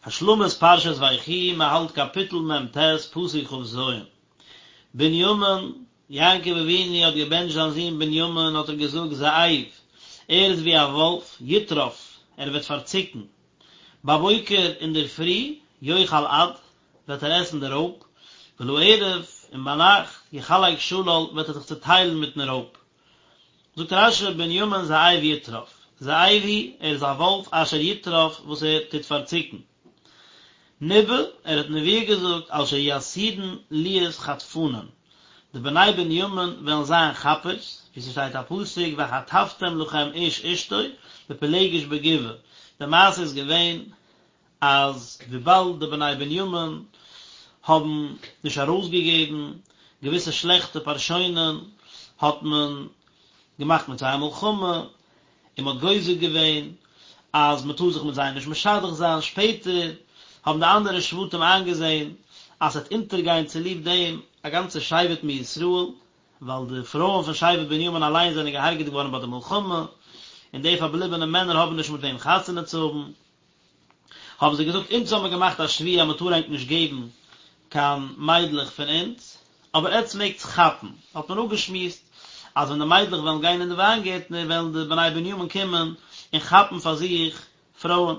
השלמת פרשת ויחי, מען האלט קאפיטל מ ט, פסוק כ ז. בנימין, יעקב אבינו האט געבענטשט זיין זון בנימין האט ער געזאגט זאב, ער איז ווי א וואלף, יטרף, ער וועט פארציקן. בבוקר אינדערפרי, יאכל עד, וועט ער עסן די רויב, ולערב, און ביינאכט, יחלק שלל, וועט ער זיך צוטיילן מיטן רויב. זאגט רשי בנימין זאב יטרף, זאב הוא, ער איז א וואלף אשר יטרף וואס ער טוט פארציקן. ניבא, ער האט נבואה געזאגט על שיהיו עתידין להיות חטפנין, די בני בנימין וועלן זיין כאפערס, ווי ס'שטייט א פסוק וחטפתם לכם איש אשתו בפילגש בגבעה, די מעשה איז געווען אז וויבאלד די בני בנימין האבן נישט ארויסגעגעבן געוויסע שלעכטע פארשוינען האט מען געמאכט מיט זיי א מלחמה און מען האט גוזר געווען אז מען טאר זיך מיט זיי נישט משדך זיין, שפעטער האבן די אנדערע שבטים איינגעזען אז ס'וועט אונטערגיין צוליב דעם א גאנצע שבט מישראל, ווייל די פרויען פון שבט בנימין אליין זענען געהארגעט געווארן ביי די מלחמה, און די פארבליבענע מענער האבן נישט מיט וועם חתונה צו האבן. האבן זיי געזאגט, אונז האבן מיר געמאכט א שבועה אז מען טאר ענק נישט געבן קיין מיידלעך פון אונז, אבער עטץ מעגטס כאפן. האט מען אפגעשמועסט אז ווען די מיידלעך וועלן גיין אין די וויינגערטנער וועלן די בני בנימין קומען און כאפן פאר זיך פרויען.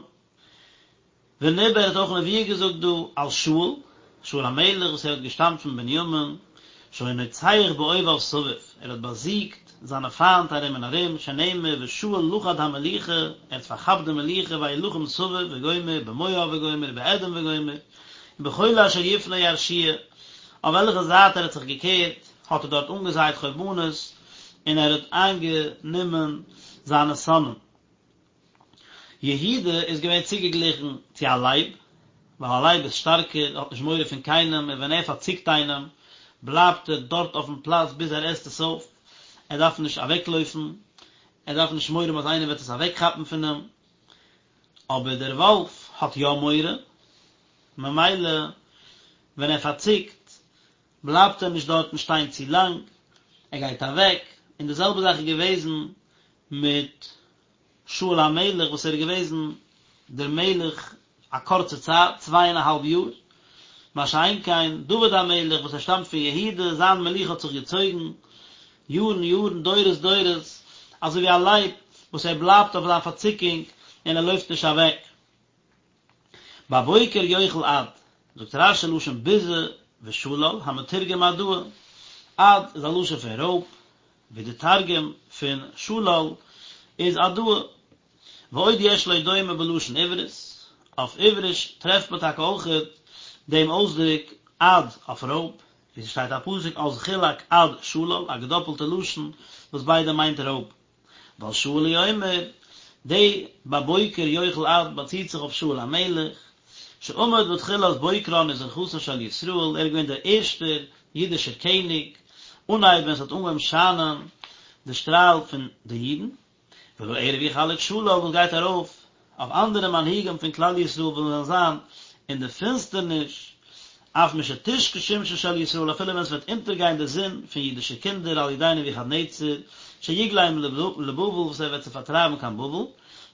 וניבא ער האט אויך נבואה געזאגט דא על שאול, שאול המלך וואס ער האט געשטאמט פון בנימין, שהיה נוצח באויביו סביב, ער האט באזיגט זיינע פיינט ארום און ארום, שנאמר ושאול לכד המלוכה, ער האט פארכאפט די מלוכה וילחם סביב וגומר, במואב וגומר, באדום וגומר, ובכל אשר יפנה ירשיע, אויף וועלכע זייט ער האט זיך געקערט, האט ער דארט אנגעזייט חורבנות, און ער האט איינגענומען זיינע שונאים. יהודה איז געווען צוגעגליכן צו א לייב, ווייל א לייב איז שטארקער, האט נישט מורא פון קיינעם, און ווען ער פארציקט איינעם, בלייבט ער דארט אויפן פלאץ ביז ער עסט עס אויף, ער דארף נישט אוועקלויפן, ער דארף נישט מורא האבן אז איינער וועט עס אוועקכאפן פון אים, אבער דער וואלף האט יא מורא, ממילא ווען ער פארציקט, בלייבט ער נישט דארטן שטיין צו לאנג, ער גייט אוועק, און די זעלבע זאך איז געוועזן מיט שאול המלך וואס ער איז געוועזן דער מלך א קורצע צייט, צוויי און א האלב יאר, מה שאין כן דוד המלך וואס ער שטאמט פון יהודה, זיין מלוכה האט זיך געצויגן יארן יארן, דורות דורות, אזוי ווי א לייב וואס ער בלייבט אויף זיין פארציקונג און ער לויפט נישט אוועק. בבוקר יאכל עד, זאגט רשי לשון ביזה ושלל, המתורגם עדאה, עד איז א לשון פון רויב, ווי די תרגום פון שלל איז עדאה. ועוד יש לו דומה בלשון עברית, אויף עבריש טרעפט מען טאקע אויכעט דעם אויסדרוק עד אויף רויב, ווי ס'שטייט א פסוק אז חולק עד שלל, א געדאפלטע לשון וואס ביידע מיינט רויב. ועל שאול הוא אומר, די בבוקר יאכל עד באציט זיך אויף שאול המלך, שעמד בתחילת בוקרן וזריחתן של ישראל, ער איז געווען דער ערשטער אידישער קעניג, אנהייב ווען עס האט אנגעהויבן שיינען די שטראל פון די אידן, ולערב יחלק שלל וואס גייט ארויף אויף אנדערע מנהיגים פון כלל ישראל וואס וועלן זיין אין די פינסטערניש, אף משתשקע שמשן של ישראל אפילו ווען עס וועט אונטערגיין די זון פון אידישע קינדער על ידי נבוכדנצר שיגלם לבבל וואס ער וועט זיי פארטרייבן קיין בבל,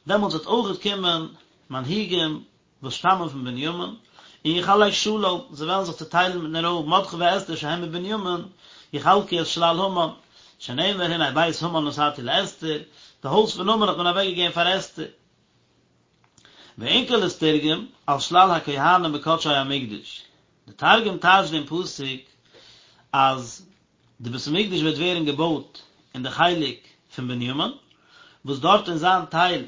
דעמאלטס וועט אויכעט קומען מנהיגים וואס שטאמען פון בנימין, און יחלק שלל, זיי וועלן זיך צעטיילן מיטן רויב, מרדכי ואסתר שהם מבנימין, יחלקו את שלל המן, שנאמר הנה בית המן נתתי לאסתר, די הויז פון המן האט מען אוועקגעגעבן פאר אסתר. ואונקלוס תרגם על שלל הכהנים בקדשי המקדש, די תרגום טייטשט דעם פסוק אז די בית המקדש וועט ווערן געבויט אין די חלק פון בנימין, וואס דארט אין זיין טייל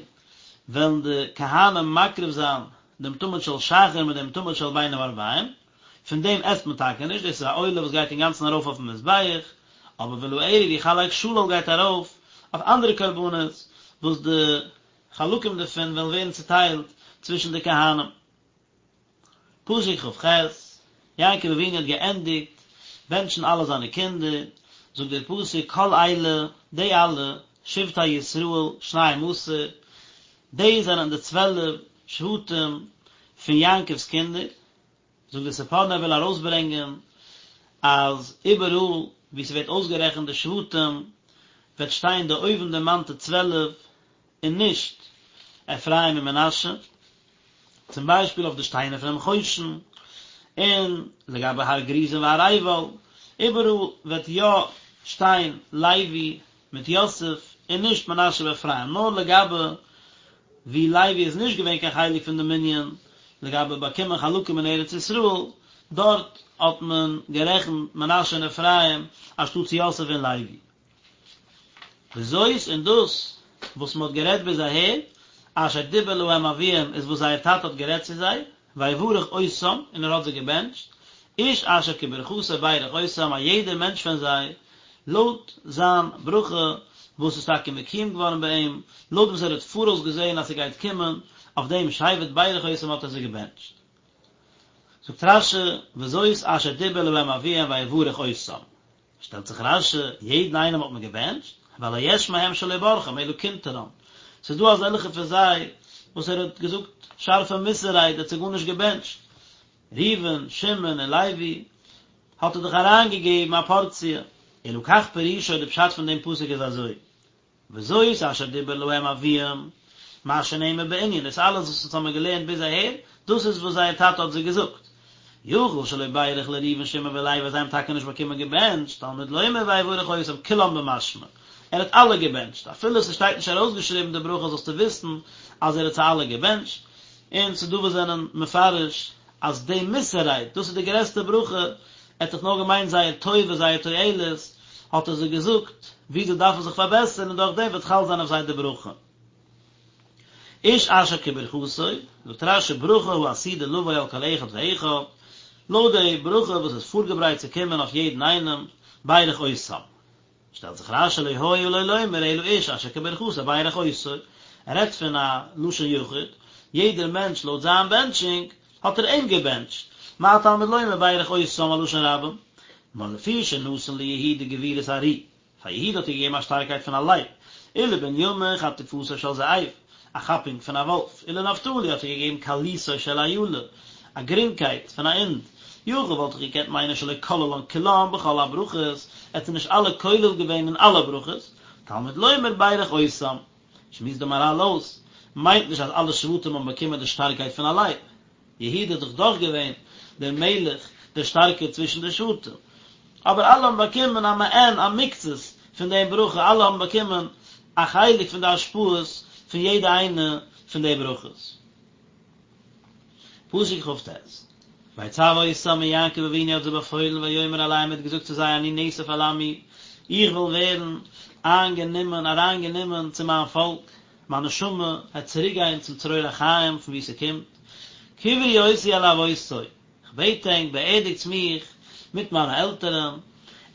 וועלן די כהנים מקריב זיין דעם תמיד של שחר מיט דעם תמיד של בין הערביים, פון דעם עסט מען טאקע נישט, דאס איז א עולה וואס גייט אינגאנצן ארויף אויפן מזבח, אבער ולערב יחלק שלל גייט ארויף אויף אנדערע קרבנות וואס די חלקים דערפון וועלן ווערן צוטיילט צווישן די כהנים. פסוק כ"ח, יעקב אבינו האט געענדיגט בענטשן אלע זיינע קינדער, זאגט דער פסוק כל אלה, די אלע, שבטי ישראל, שנים עשר, די זענען די צוועלף שבטים פון יעקב'ס קינדער, זאגט דער ספורנו ער וויל ארויסברענגען אז איבעראל וואו ס'ווערט אויסגערעכנט די שבטים וועט שטיין די אויבנדערמאנטע 12 און נישט אפרים און מנשה. צום ביישפיל אויף די שטיינער פונעם חושן, און לגבי הר גריזים והר עיבל, איבעראל וועט יא שטיין לוי מיט יוסף און נישט מנשה ואפרים, נאר לגבי ווי לוי איז נישט געווען קיין חלק פון די מנין לגבי באקומען חלקים אין ארץ ישראל, דארט האט מען גערעכנט מנשה און אפרים אנשטאטס יוסף און לוי. וזאת און דאס וואס מען האט גערעדט ביז אהער, אשר דיבר להם אביהם איז וואס זייער טאטע האט גערעדט צו זיי, ויברך אותם און ער האט זיי געבענטשט, איש אשר כברכתו ברך אותם א יעדער מענטש פון זיי לויט זיין ברכה וואס איז טאקע מקוים געווארן ביי אים, לויט וואס ער האט פאראויס געזען אז ס'גייט קומען, אויף דעם שבט ברך אותם האט ער זיי געבענטשט. זאגט רש"י, וזאת אשר דיבר להם אביהם ויברך אותם. שטעלט זיך רש"י, יעדן איינעם האט מען געבענטשט, והלא יש מהם שלא ברכם אלא קנטרם, ס'איז דא אזעלכע פון זיי וואס ער האט געזאגט שארפע מוסר רייד, ער האט זיי גארנישט געבענטשט, ראובן, שמעון און לוי האט ער דאך אריינגעגעבן א פארציע, אלא כך פירושו די פשט פון דעם פסוק איז אזוי, וזאת אשר דיבר להם אביהם, מה שנאמר בענין, דאס אלעס וואס אונז האמיר געלערנט ביז אהער, דאס איז וואס זייער טאטע האט זיי געזאגט. יכול שלא בירך לראובן שמעון ולוי אז זיי האבן טאקע נישט באקומען געבענטשט, תלמוד לומר ויברך אותם כולם במשמע, ער האט אלע געבענטשט, אפילו ס'שטייט נישט ארויסגעשריבן די ברכה זאלסטו וויסן אז ער האט זיי אלע געבענטשט, און ס'דא וואס זענען מפרש אז די מוסר רייד, דאס איז די גרעסטע ברכה, ער האט דאך נאר געמיינט זייער טובה, זייער תועלת, האט ער זיי געזאגט ווי זיי דארפן זיך פארבעסערן און דורך דעם וועט חל זיין אויף זיי די ברכה. איש אשר כברכתו, זאגט רש"י ברכה העתידה לבוא על כל אחד ואחד, לויט די ברכה וואס איז פארגעברייט צו קומען אויף יעדן איינעם, ברך אותם. שטעלט זיך רש"י לא היה לו לומר אלא איש אשר כברכתו ברך אותו, ער רעדט פון א לשון יחיד, יעדער מענטש לויט זיין בענטשונג האט ער אים געבענטשט, מה תלמוד לומר ברך אותם א לשון רבים, נאר לפי שנתן ליהודה גבורת ארי, פאר יהודה האט ער געגעבן א שטארקייט פון א לייב, ולבנימין חטיפתו של זאב, א כאפונג פון א וואלף, ולנפתלי האט ער געגעבן קלותו של איילה, א גרינגקייט פון א הינד, יכול וואלט איך געקענט מיינען שלא כללן כולם בכל הברכות, ער האט זיי נישט אלע כולל געווען אין אלע ברכות, תלמוד לומר ברך אותם. שמועסט די מהר"ל אויס, מיינט נישט אז אלע שבטים האבן באקומען די שטארקייט פון א לייב. יהודה איז דאך דאך געווען דער מלך דער שטארקער צווישן די שבטים. אבער אלע האבן באקומען א מעין א מקצת פון דעם ברכה, אלע האבן באקומען א חלק פון די השפעות פון יעדע איינע פון די ברכות. פסוק כ"ט, ויצו אותם און יעקב אבינו האט זיי באפוילן ויאמר אליהם ער האט געזאגט צו זיי אני נאסף אל עמי, איך וועל ווערן איינגענומען, אריינגענומען, צו מיין פאלק, מיין נשמה וועט צוריקגיין צום צרור החיים פון וואו ס'קומט, קברו אותי אל אבותי, כ'בעט ענק, באערדיגטס מיך מיט מיינע עלטערן,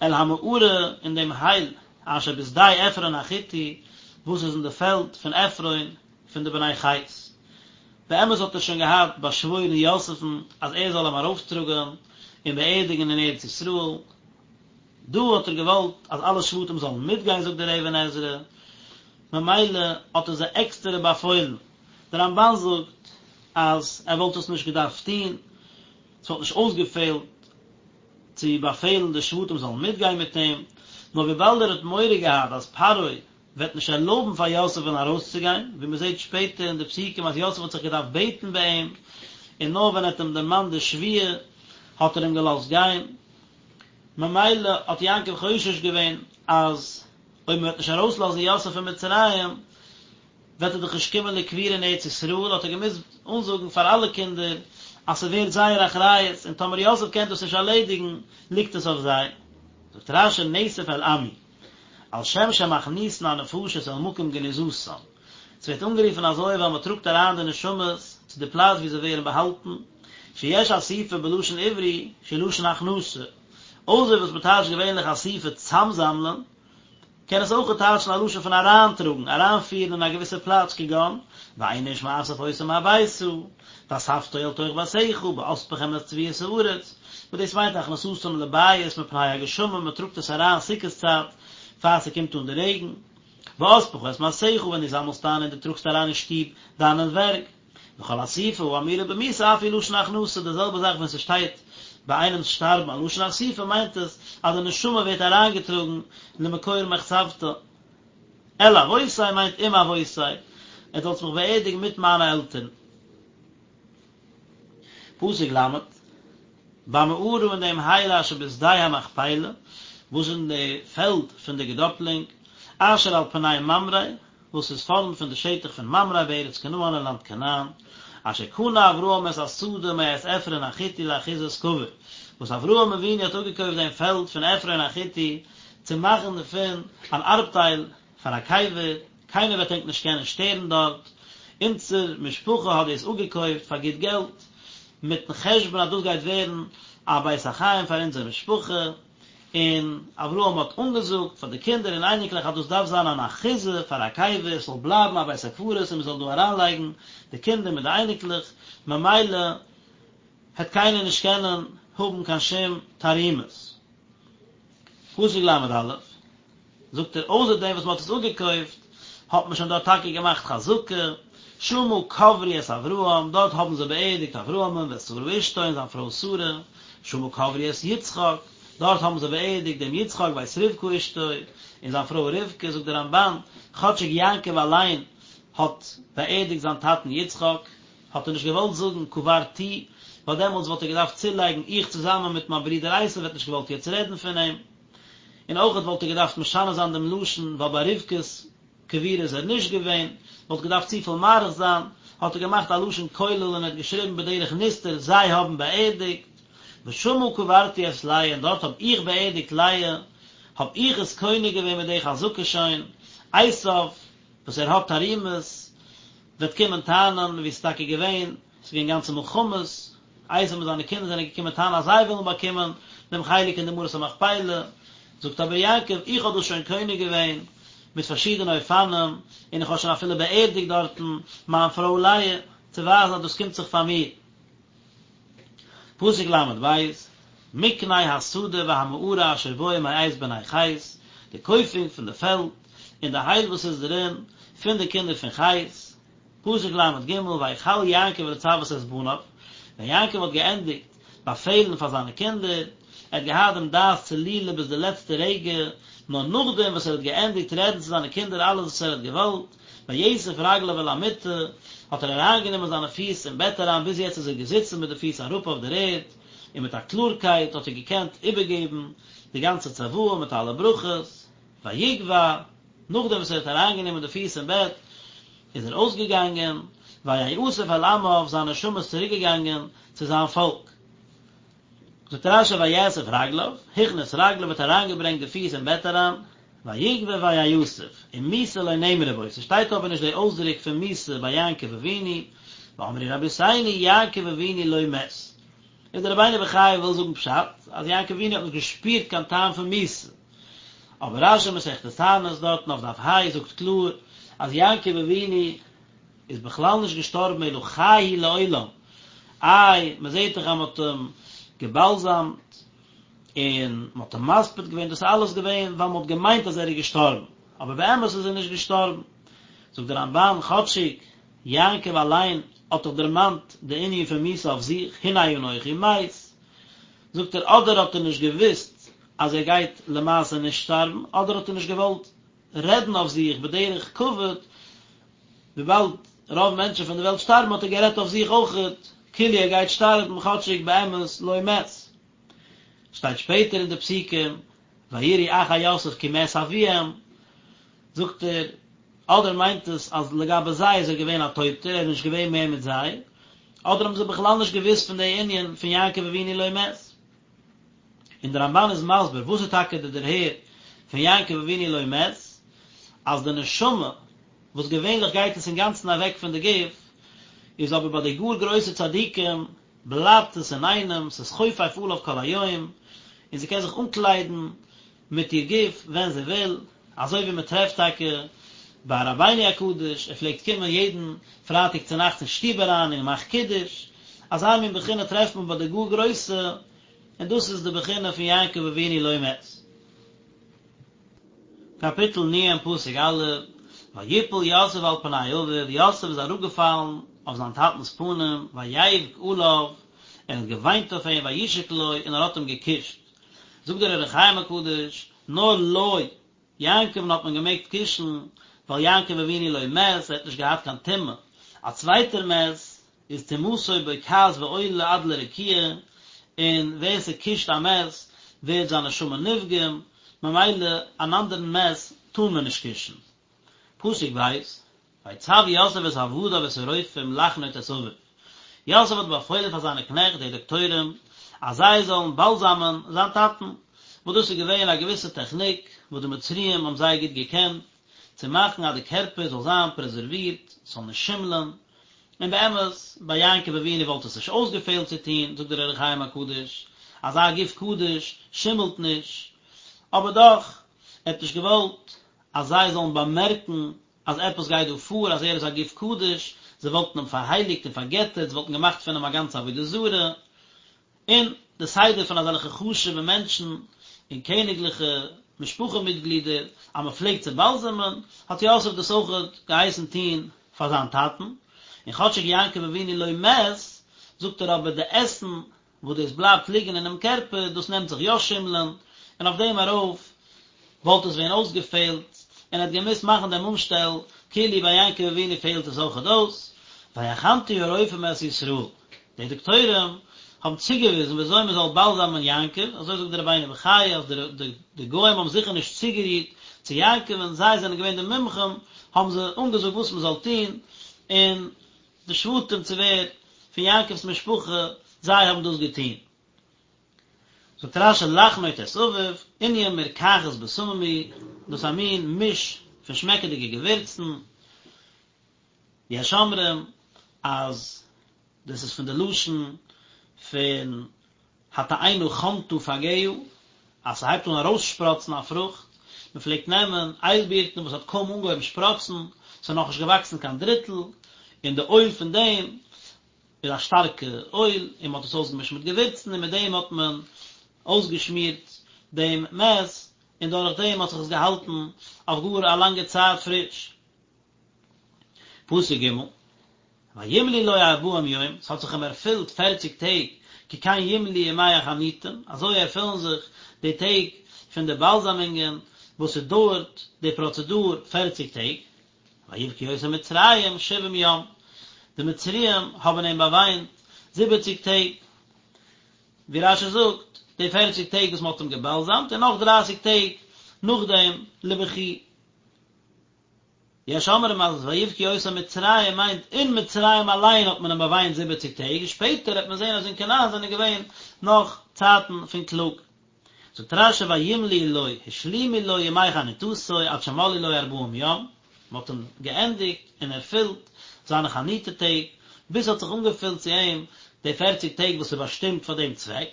אל המערה אין דעם הייל אשר בשדה עפרון החתי, וואס איז אין די פעלד פון עפרון פון די בני חת. באמת האט ער שוין געהאט באשוואוירן יוסף'ן אז ער זאל אים ארויפטראגן און באערדיגן אין ארץ ישראל, דא האט ער געוואלט אז אלע שבטים זאלן מיטגיין זאגט דער אבן עזרא, ממילא האט ער זיי עקסטערע באפוילן, דער רמב"ן זאגט אז ער וואלט עס נישט געדארפט טון, עס וואלט נישט אויסגעפעלט צו באפעלן די שבטים זאלן מיטגיין מיט אים, נאר וויבאלד ער האט מורא געהאט אז פרעה וועט נישט ערלויבן פאר יוסף'ן ארויסצוגיין, ווי מען זעט שפעטער אין די פסוקים אז יוסף האט זיך געדארפט בעטן ביי אים, און נאר ווען ער האט אים דערמאנט די שבועה האט ער אים געלאזט גיין, ממילא האט יעקב חושש געווען אז אויב מען וועט נישט ארויסלאזן יוסף פון מצרים וועט ער דאך נישט קומען לקבורה אין ארץ ישראל, האט ער געמוזט אנזאגן פאר אלע קינדער אז ס'ווערט זייער אחריות און טאמער יוסף קען דאס נישט ערלעדיגן ליגט עס אויף זיי. זאגט רש"י נאסף אל עמי. על שם שמכניסין הנפשות אל מקום גניזתן, ס'ווערט אנגערופן אזוי ווייל מ'טראגט אריין די נשמות צו די פלאץ וואו זיי ווערן באהאלטן, שיש אסיפה בלשון עברי שהיא לשון הכנסה, אויסער וואס מ'טייטשט געווענליך אסיפה צאמזאמלען, קען עס אויך טייטשן א לשון פון אריינטראגן, אריינפירן אין א געוויסע פלאץ כגון, ואין איש מאסף אותם הביתה, ואספתו אל תוך ביתך, באספכם את תבואת הארץ, וואס דאס מיינט הכנסתם לבית מפני הגשמים, מען טראגט עס אריין סוכות צייט פאר ס'קומט אן די רעגן, באספך את מעשיך, ווען דו זאמלסט איין און דו טראגסט אריין אין שטוב דיינע ווערק, וכל אסיפה האמורה במיתה אף היא לשון הכנסה, די זעלבע זאך ווען ס'שטייט ביי איינעמ'ס שטארבן א לשון אסיפה מיינט עס אז די נשמה ווערט אריינגעטראגן למקור מחצבתה. אל אבותי מיינט עם אבותי, עטס זאלטס מיך באערדיגן מיט מיינע עלטערן. פסוק ל', במערה אין דעם הייל אשר בשדה המכפלה, וואס איז אין די פעלד פון די געדאפלונג, אשר על פני ממרא, וואס איז פארנט פון די שטח פון ממרא בארץ כנען אין לאנד כנען, אשר קנה אברהם את השדה מאת עפרון החתי לאחוזת קבר, וואס אברהם אבינו האט אפגעקויפט דעם פעלד פון עפרון החתי צו מאכן דערפון אן ארבטייל פאר א קבר, קיינער וועט ענק נישט קענען שטערן דארט, אונזער משפחה האט דאס אפגעקויפט פאר גוט געלט, מיטן חשבון אז דאס גייט ווערן א בית החיים פאר אונזער משפחה, און אברהם האט אנגעזאגט פאר די קינדער און אייניקלעך אז דאס דארף זיין אן אחוזה פאר א קבר, עס זאל בלייבן א בית הקברות און מען זאל דא אריינלייגן די קינדער מיט די אייניקלעך, ממילא העט קיינער נישט קענען האבן קיין שום תרעומות. פסוק ל"א, זאגט ער, אויסער דעם וואס מען האט עס אפגעקויפט, האט מען שוין דארט טאקע געמאכט חזקה, שמה קברו את אברהם, דארט האבן זיי באערדיגט אברהמ'ן ואת שרה אשתו און זיין פרוי שרה, שמה קברו את יצחק, דארט האבן זיי באערדיגט דעם יצחק ואת רבקה אשתו, און זיין פרוי רבקה, זאגט דער רמב"ן, כאטשיג יעקב אליין האט באערדיגט זיין טאטן יצחק, האט ער נישט געוואלט זאגן קברתי, ווייל דעמאלטס וואלט ער געדארפט צולייגן איך צוזאמען מיט מיין ברודער עשו וועט נישט געוואלט יעצט רעדן פון אים. און אויכעט וואלט ער געדארפט משנה זיין דעם לשון ווייל ביי רבקה'ס קבורה איז ער נישט געווען, וואלט געדארפט צופיל מאריך זיין, האט ער געמאכט א לשון כולל און ער האט געשריבן בדרך נסתר זיי האבן באערדיגט, ושמה קברתי את לאה און דארט האב איך באערדיגט לאה, האב איך עס קונה געווען מיט די חזקה שוין, עשיו וואס ער האט תרעומות וועט קומען טענה'ן ווי ס'איז טאקע געווען, ס'איז געווען גאנצע מלחמות, עשו מיט זיינע קינדער זענען געקומען טענה'ן אז זיי ווילן באקומען דעם חלק אין די מערת המכפלה, זאגט אבער יעקב, איך האב דאס שוין קונה געווען מיט פארשידענע אופנים, און איך האב שוין אפילו באערדיגט דארטן מיין פרוי לאה, צו ווייזן אז דאס קומט זיך פאר מיר. פסוק ל"ב, מקנה השדה והמערה אשר בו מאת בני חת, די קויפונג פון די פעלד און די הייל וואס איז דערין, פון די קינדער פון חת. פסוק ל"ג, ויכל יעקב לצוות את בניו, ווען יעקב האט געענדיגט באפעלן פאר זיינע קינדער, ער האט געהאט דעם דעת צלולה ביז די לעצטע רגע, נאר נאכדעם וואס ער האט געענדיגט רעדן צו זיינע קינדער אלעס וואס ער האט געוואלט, ויאסף רגליו אל המיטה, האט ער אריינגענומען זיינע פיס אין בעט אריין, ביז יעצט איז ער געזיצן מיט די פיס אראפ אויף דער ערד, און מיט א קלארקייט האט ער געקענט איבערגעבן די גאנצע צוואה מיט אלע ברכות, ויגווע, נאכדעם וואס ער האט אריינגענומען די פיס אין בעט, איז ער אויסגעגאנגען, ויאסף אל עמיו, זיין נשמה איז צוריקגעגאנגען צו זיין פאלק. זאגט רש"י ויאסף רגליו, הכניס רגליו האט אריינגעברענגט די פיס אין בעט אריין, ויגוע ויאסף, ומיתה לא נאמרה בו, ס'שטייט אבער נישט די אויסדרוק פון מיתה ביי יעקב אבינו, ואמרו רבותינו יעקב אבינו לא מת. איז דער רבינו בחיי וויל זאגן פשט, אז יעקב אבינו האט נישט געשפירט קיין טעם פון מיתה. אבער רש"י מסכת תענית דארטן אויף דף ה' זאגט קלאר אז יעקב אבינו איז בכלל נישט געשטארבן אלא חי הוא לעולם, איי מען זעט דאך אז מען האט אים געבאלזאמט און מען האט אים מספיד געווען, דאס איז אלעס געווען ווייל מען האט געמיינט אז ער איז געשטארבן, אבער באמת איז ער נישט געשטארבן. זאגט דער רמב"ן, כאטשיג יעקב אליין האט דאך דערמאנט די ענין פון מיתה אויף זיך, הנה אנכי מת, זאגט ער אדער האט ער נישט געוואוסט אז ער גייט למעשה נישט שטארבן, אדער האט ער נישט געוואלט רעדן אויף זיך בדרך כבוד, וויבאלד רוב מענטשן פון די וועלט שטארבן האט ער גערעדט אויף זיך אויכעט כאילו ער גייט שטארבן כאטשיג באמת לא מת. שטייט שפעטער אין די פסוקים ויראו אחי יוסף כי מת אביהם, זאגט ער, אדער מיינט עס אז לגבי זיי איז ער געווען א טויטער, ער איז נישט געווען מער מיט זיי, אדער האבן זיי בכלל נישט געוואוסט פון די ענין פון יעקב אבינו לא מת. און דער רמב"ן איז מסביר וואס איז טאקע די דערהער פון יעקב אבינו לא מת, אז די נשמה, וואס געווענליך גייט עס אינגאנצן אוועק פון די גוף, איז אבער ביי די גאר גרויסע צדיקים בלייבט עס אינאיינעם, ס'איז חופף עליו כל היום, און זי קען זיך אנקליידן מיט איר גוף ווען זי וויל, אזוי ווי מען טרעפט טאקע ביי רבינו הקדוש, ער פלעגט קומען יעדן פרייטאג צונאכטס אין שטוב אריין און געמאכט קידוש, אזא מין בחינה טרעפט מען ביי די גאר גרויסע, און דאס איז די בחינה פון יעקב אבינו לא מת. קאפיטל נ' פסוק א', ויפל יוסף על פני אביו, יוסף איז אראפגעפאלן אויף זיין טאטנ'ס פנים, ויבך עליו, ער האט געוויינט אויף אים, וישק לו, און ער האט אים געקושט. זאגט דער אור החיים הקדוש, נאר לו, יעקב'ן האט מען געמעגט קושן, ווייל יעקב אבינו לא מת, ער האט נישט געהאט קיין טומאה. א צווייטער מת. איז טומאתו בוקעת ועולה עד לרקיע, און ווער ס'קושט א מת ווערט זיין נשמה נפגם, ממילא אן אנדערן מת טאר מען נישט קושן. פסוק ב', ויצו יוסף את עבדיו את הרופאים לחנוט את אביו, יוסף האט באפוילן פאר זיינע קנעכט די דאקטוירים אז זיי זאלן באלזאמען זיין טאטן, וואס דאס איז געווען א געוויסע טעכניק וואס די מצריים האבן זייער גוט געקענט, צו מאכן אז די קערפער זאל זיין פרעזערווירט, ס'זאל נישט שימלען, און באמת, ביי יעקב אבינו וואלט עס נישט אויסגעפעלט צו טון, זאגט דער אור החיים הקדוש, אזא גוף קדוש שימלט נישט, אבער דאך, ער האט נישט געוואלט אז זיי זאלן באמערקן אז עפעס גייט דא פאר, אז ער איז א גוף קדוש, זיי וואלטן אים פארהייליגט און פארגעטערט, זיי וואלטן געמאכט פון אים א גאנצע עבודה זרה, און די סדר פון אזעלכע חשוב'ע מענטשן און קעניגליכע משפחה מיטגלידער אז מען פלעגט צו באלזעמען, האט יוסף דאס אויכעט געהייסן טון פאר זיין טאטן, און כאטשיג יעקב אבינו לא מת, זאגט ער אבער די עסן וואס דאס בלייבט ליגן אינעם קערפער, דאס נעמט זיך יא שימלען, און אויף דעם ארויף וואלט עס ווען אויסגעפעלט, און ער האט געמוזט מאכן דעם אנשטעל, כאילו ביי יעקב אבינו פעלט עס אויכעט אויס, ויחנטו הרופאים את ישראל, די דאקטוירים האבן צוגעוויזן ווי אזוי מען זאל באלזאמען יעקב, אזוי זאגט דער רבינו בחיי אז די גוים האבן זיכער נישט צוגערירט צו יעקב און זיי זענען געווען די מומחים, האבן זיי אנגעזאגט וואס מען זאל טון, און די שבטים צו ווער פון יעקב'ס משפחה זיי האבן דאס געטון. זאגט רש"י לחנוט את אביו, ענין מרקחת בשמים היא, דאס איז א מין מיש פון שמעקעדיגע געווירצן, יש אומרים אז דאס איז פון די לשון פון התאנה חנטה פגיה, אז ס'הייבט אן ארויסשפראצן א פרוכט, מ'פלעגט נעמען איילבירטן וואס האט קוים אנגעהויבן שפראצן, ס'איז נאכנישט געוואקסן קיין דריטל, און די אויל פון דעם איז א שטארקע אויל, און מ'האט עס אויסגעמישט מיט געווירצן, און מיט דעם האט מען אויסגעשמירט דעם מת, און דורך דעם האט זיך עס געהאלטן אויף גאר א לאנגע צייט פריש. פסוק ג', וימלאו לו ארבעים יום, ס'האט זיך אים ערפילט פערציג טעג, כי כן ימלאו ימי החניטים, אזוי ערפילן זיך די טעג פון די באלזאמונגען, וואס ס'דויערט די פראצעדור פערציג טעג, ויבכו אותו מצרים שבעים יום, די מצריים האבן אים באוויינט זיבעציג טעג, ווי רש"י זאגט, די פערציג טעג וואס מ'האט אים געבאלזאמט, און נאך דרייסיג טעג נאכדעם לבכי. יש אומרים אז ויבכו אותו מצרים מיינט אין מצרים אליין האט מען אים באוויינט זיבעציג טעג און שפעטער העט מען זען אז אין כנען זענען געווען נאך צייטן פון קלאג. זאגט רש"י וימלאו לו השלימו לו ימי חניטתו עד שמלאו לו ארבעים יום, מען האט אים געענדיגט און ערפילט זיינע חניטה טעג ביז ס'האט זיך אנגעפילט צו אים די פערציג טעג וואס איז באשטימט פאר דעם צוועק,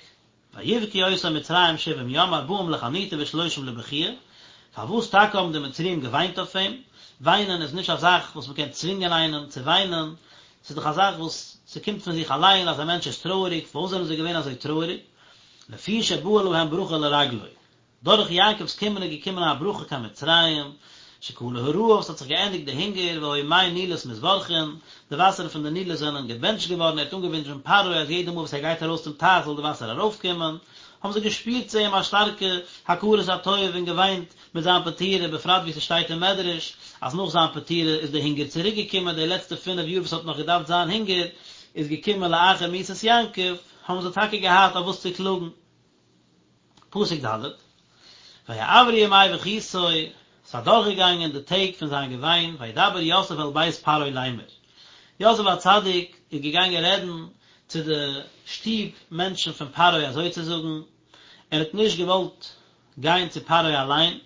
ויבכו אותו מצרים שבעים יום ארבעים לחניטה ושלושים לבכיה, פארוואס טאקע האבן די מצריים געוויינט אויף אים? וויינען איז נישט א זאך וואס מ'קען צווינגען איינעם צו וויינען, ס'איז דאך א זאך וואס ס'קומט פון זיך אליין אז א מענטש איז טרויעריג, פארוואס זענען זיי געווען אזוי טרויעריג? לפי שבאה להם ברכה לרגלו, דורך יעקב'ס קומען איז געקומען א ברכה קיין מצרים, שכלה הרעב, ס'האט זיך געענדיגט די הונגער, והיו מי נילוס מתברכין, די וואסערן פון די נילוס זענען געבענטשט געווארן, ער האט אנגעווינטשן פרעה אז יעדע מאל וואס ער גייט ארויס צום טייך זאל די וואסער ארויפקומען, האבן זיי געשפירט צו אים א שטארקע הכרת הטוב און געוויינט מיט זיין פטירה, בפרט ווי ס'שטייט אין מדרש אז נאך זיין פטירה איז די הונגער צוריק געקומען, די לעצטע פינף יאר וואס האט נאך געדארפט זיין הונגער איז געקומען לאחר מיתת יעקב, האבן זיי טאקע געהאט אויף וואס צו קלאגן. פסוק ד', ויעברו ימי בכיתו, ס'איז אדורכגעגאנגען די טעג פון זיין געוויין, וידבר יוסף אל בית פרעה לאמר, יוסף הצדיק איז געגאנגען רעדן צו די שטוב מענטשן פון פרעה אזוי צו זאגן, ער האט נישט געוואלט גיין צו פרעה אליין,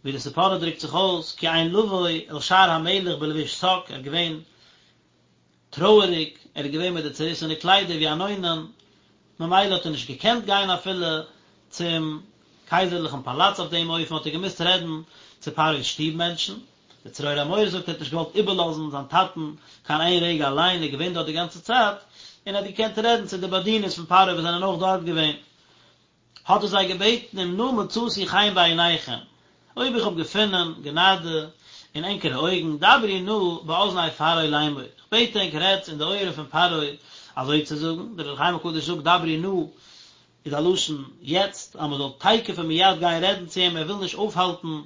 ווי די ספורנו דרוקט זיך אויס, כי אין לבוא אל שער המלך בלבוש שק, ער איז געווען טרויעריג, ער איז געווען מיט די צעריסענע קליידער ווי אן אונן, ממילא האט ער נישט געקענט גיין אפילו צום קייזערליכן פאלאץ אויף דעם אופן האט ער געמוזט רעדן צו פרעה'ס שטוב מענטשן, דער צרור המור זאגט ער האט נישט געוואלט איבערלאזן זיין טאטן קיין איין רגע אליין, ער איז געווען דארט די גאנצע צייט, און ער האט געקענט רעדן צו די באדינערס פון פרעה וואס זענען אויך דארט געווען. האט ער זיי געבעטן אם נא מצאתי חן בעיניכם, אויב איך האב געפונען גענאדע אין ענקערע אויגן, דברו נא באזני פרעה לאמור, איך בעט ענק רעדטס אין די אויערן פון פרעה אזוי צו זאגן, דער אור החיים הקדוש זאגט דברו נא איז א לשון יעצט, אז מען זאל תיכף ומיד גיין רעדן צו אים, ער וויל נישט אויפהאלטן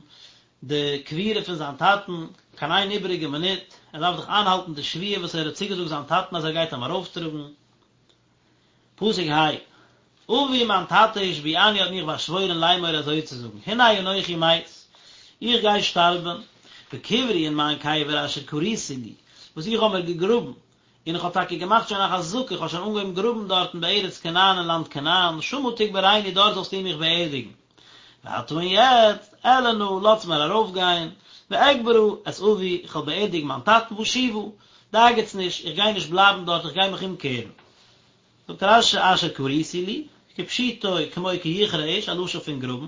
די קבורה פון זיין טאטן. קיין איין איבעריגע מינוט, ער דארף דאך איינהאלטן די שבועה וואס ער האט צוגעזאגט זיין טאטן אז ער גייט אים ארויפטראגן. פסוק ה, אבי מיין טאטע השביעני האט מיך באשוואוירן לאמור אזוי צו זאגן, הנה אנכי מת, איך גיי שטארבן, וקברי און מיין קבר אשר כריתי לי, וואס איך האב מיר געגראבן, און איך האב טאקע געמאכט שוין א חזקה, איך האב שוין אנגעהויבן גראבן דארטן בארץ כנען אין לאנד כנען, שמה תקברני דארט זאלסטו מיך באערדיגן. ועתה און יעצט, אעלה נא, לאזטס מיר ארויפגיין, ואקברה את אבי, איך וועל באערדיגן מיין טאטן, ואשובה, דאגה'טס נישט, איך גיי נישט בלייבן דארט, איך גיי מיך אומקערן. זאגט רש"י אשר כריתי לי, כפשוטו כמו כי יכרה איש, א לשון פון גראבן,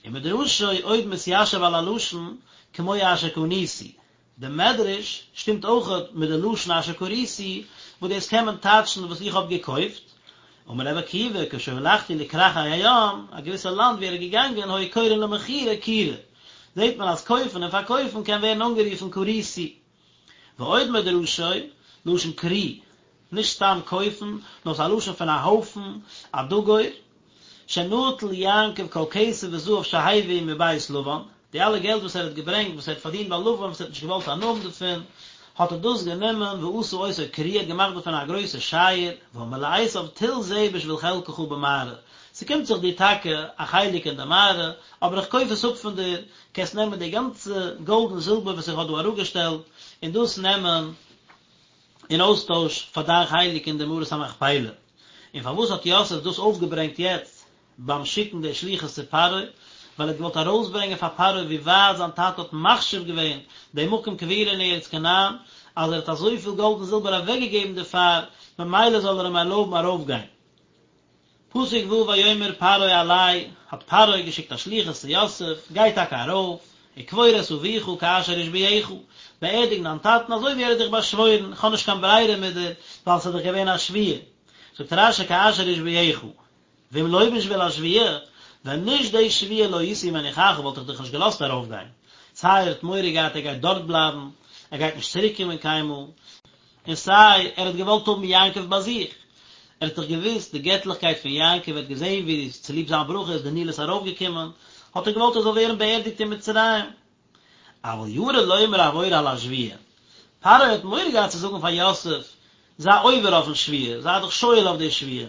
ומדרשו עוד מתיישב על הלשון כמו אשר קניתי, די מדרש שטימט אויכעט מיט די לשון אשר כריתי, וואס דאס קען מען טייטשן וואס איך האב געקויפט, אמר רבי עקיבא כשהלכתי לכרכי הים, א געוויסע לאנד ווי ער איז געגאנגען היו קורין למכירה כירה, זעט מען אז קויפן און פארקויפן קען ווערן אנגערופן כריתי. ועוד מדרשו, לשון כרי, נישט סתם קויפן, נאר ס'איז א לשון פון א הויפן, א דגור, שנטל יעקב כל כסף וזהב שהביא מבית לבן, די אלע געלט וואס ער האט געברענגט, וואס ער האט פארדינט ביי לבן, וואס ער האט נישט געוואלט הנאה האבן דערפון, האט ער דאס גענומען ועשה אותו כרי, ער האט געמאכט דערפון א גרויסע שייער, ואמר לעשו טול זה בשביל חלקך במערה, ס'קומט זיך דיר טאקע א חלק אין די מערה, אבער איך קויף עס אפ פון דיר, קענסט נעמען די גאנצע גאלד און זילבער וואס איך האב דא אראפגעשטעלט, און דאס נעמען אין אויסטויש פאר דיין חלק אין די מערת המכפלה. און פארוואס האט יוסף דאס אויפגעברענגט יעצט ביים שיקן די שליחות צו פרעה? ווייל ער האט געוואלט ארויסברענגען פאר פרעה ווי ווייט זיין טאטע האט מחשיב געווען די מקום קבורה אין ארץ כנען, אז ער האט אזויפיל גאלד און זילבער אוועקגעגעבן דערפאר, ממילא זאל ער אים ערלויבן ארויפגיין. פסוק ו' ויאמר פרעה עלה, האט פרעה געשיקט א שליחות צו יוסף, גיי טאקע ארויף, וקבור את אביך כאשר השביעך, באערדיג דיין טאטן אזוי ווי ער האט דיך באשוואוירן, איך האב נישט קיין ברירה מיט דיר, ווייל ס'איז דאך געווען א שבועה. זאגט רש"י כאשר השביעך, ואם לא בשביל השבועה, ווען נישט די שבועה לא הייתי מניחך וואלט איך דיך נישט געלאזט ארויפגיין, סיי ער האט מורא געהאט ער גייט דארט בלייבן, ער גייט נישט צוריק קומען קיינמאל, און סיי ער האט געוואלט האבן יעקב ביי זיך, ער האט דאך געוואוסט די געטליכקייט פון יעקב, ער האט געזען ווי צוליב זיין ברכה איז די נילוס ארויפגעקומען, האט ער געוואלט ער זאל ווערן באערדיגט אין מצרים. אבל ירא לומר עבור על השבועה, פרעה האט מורא געהאט צו זאגן פאר יוסף, זיי עובר אויפן שבועה, זיי דיך שואל אויף די שבועה,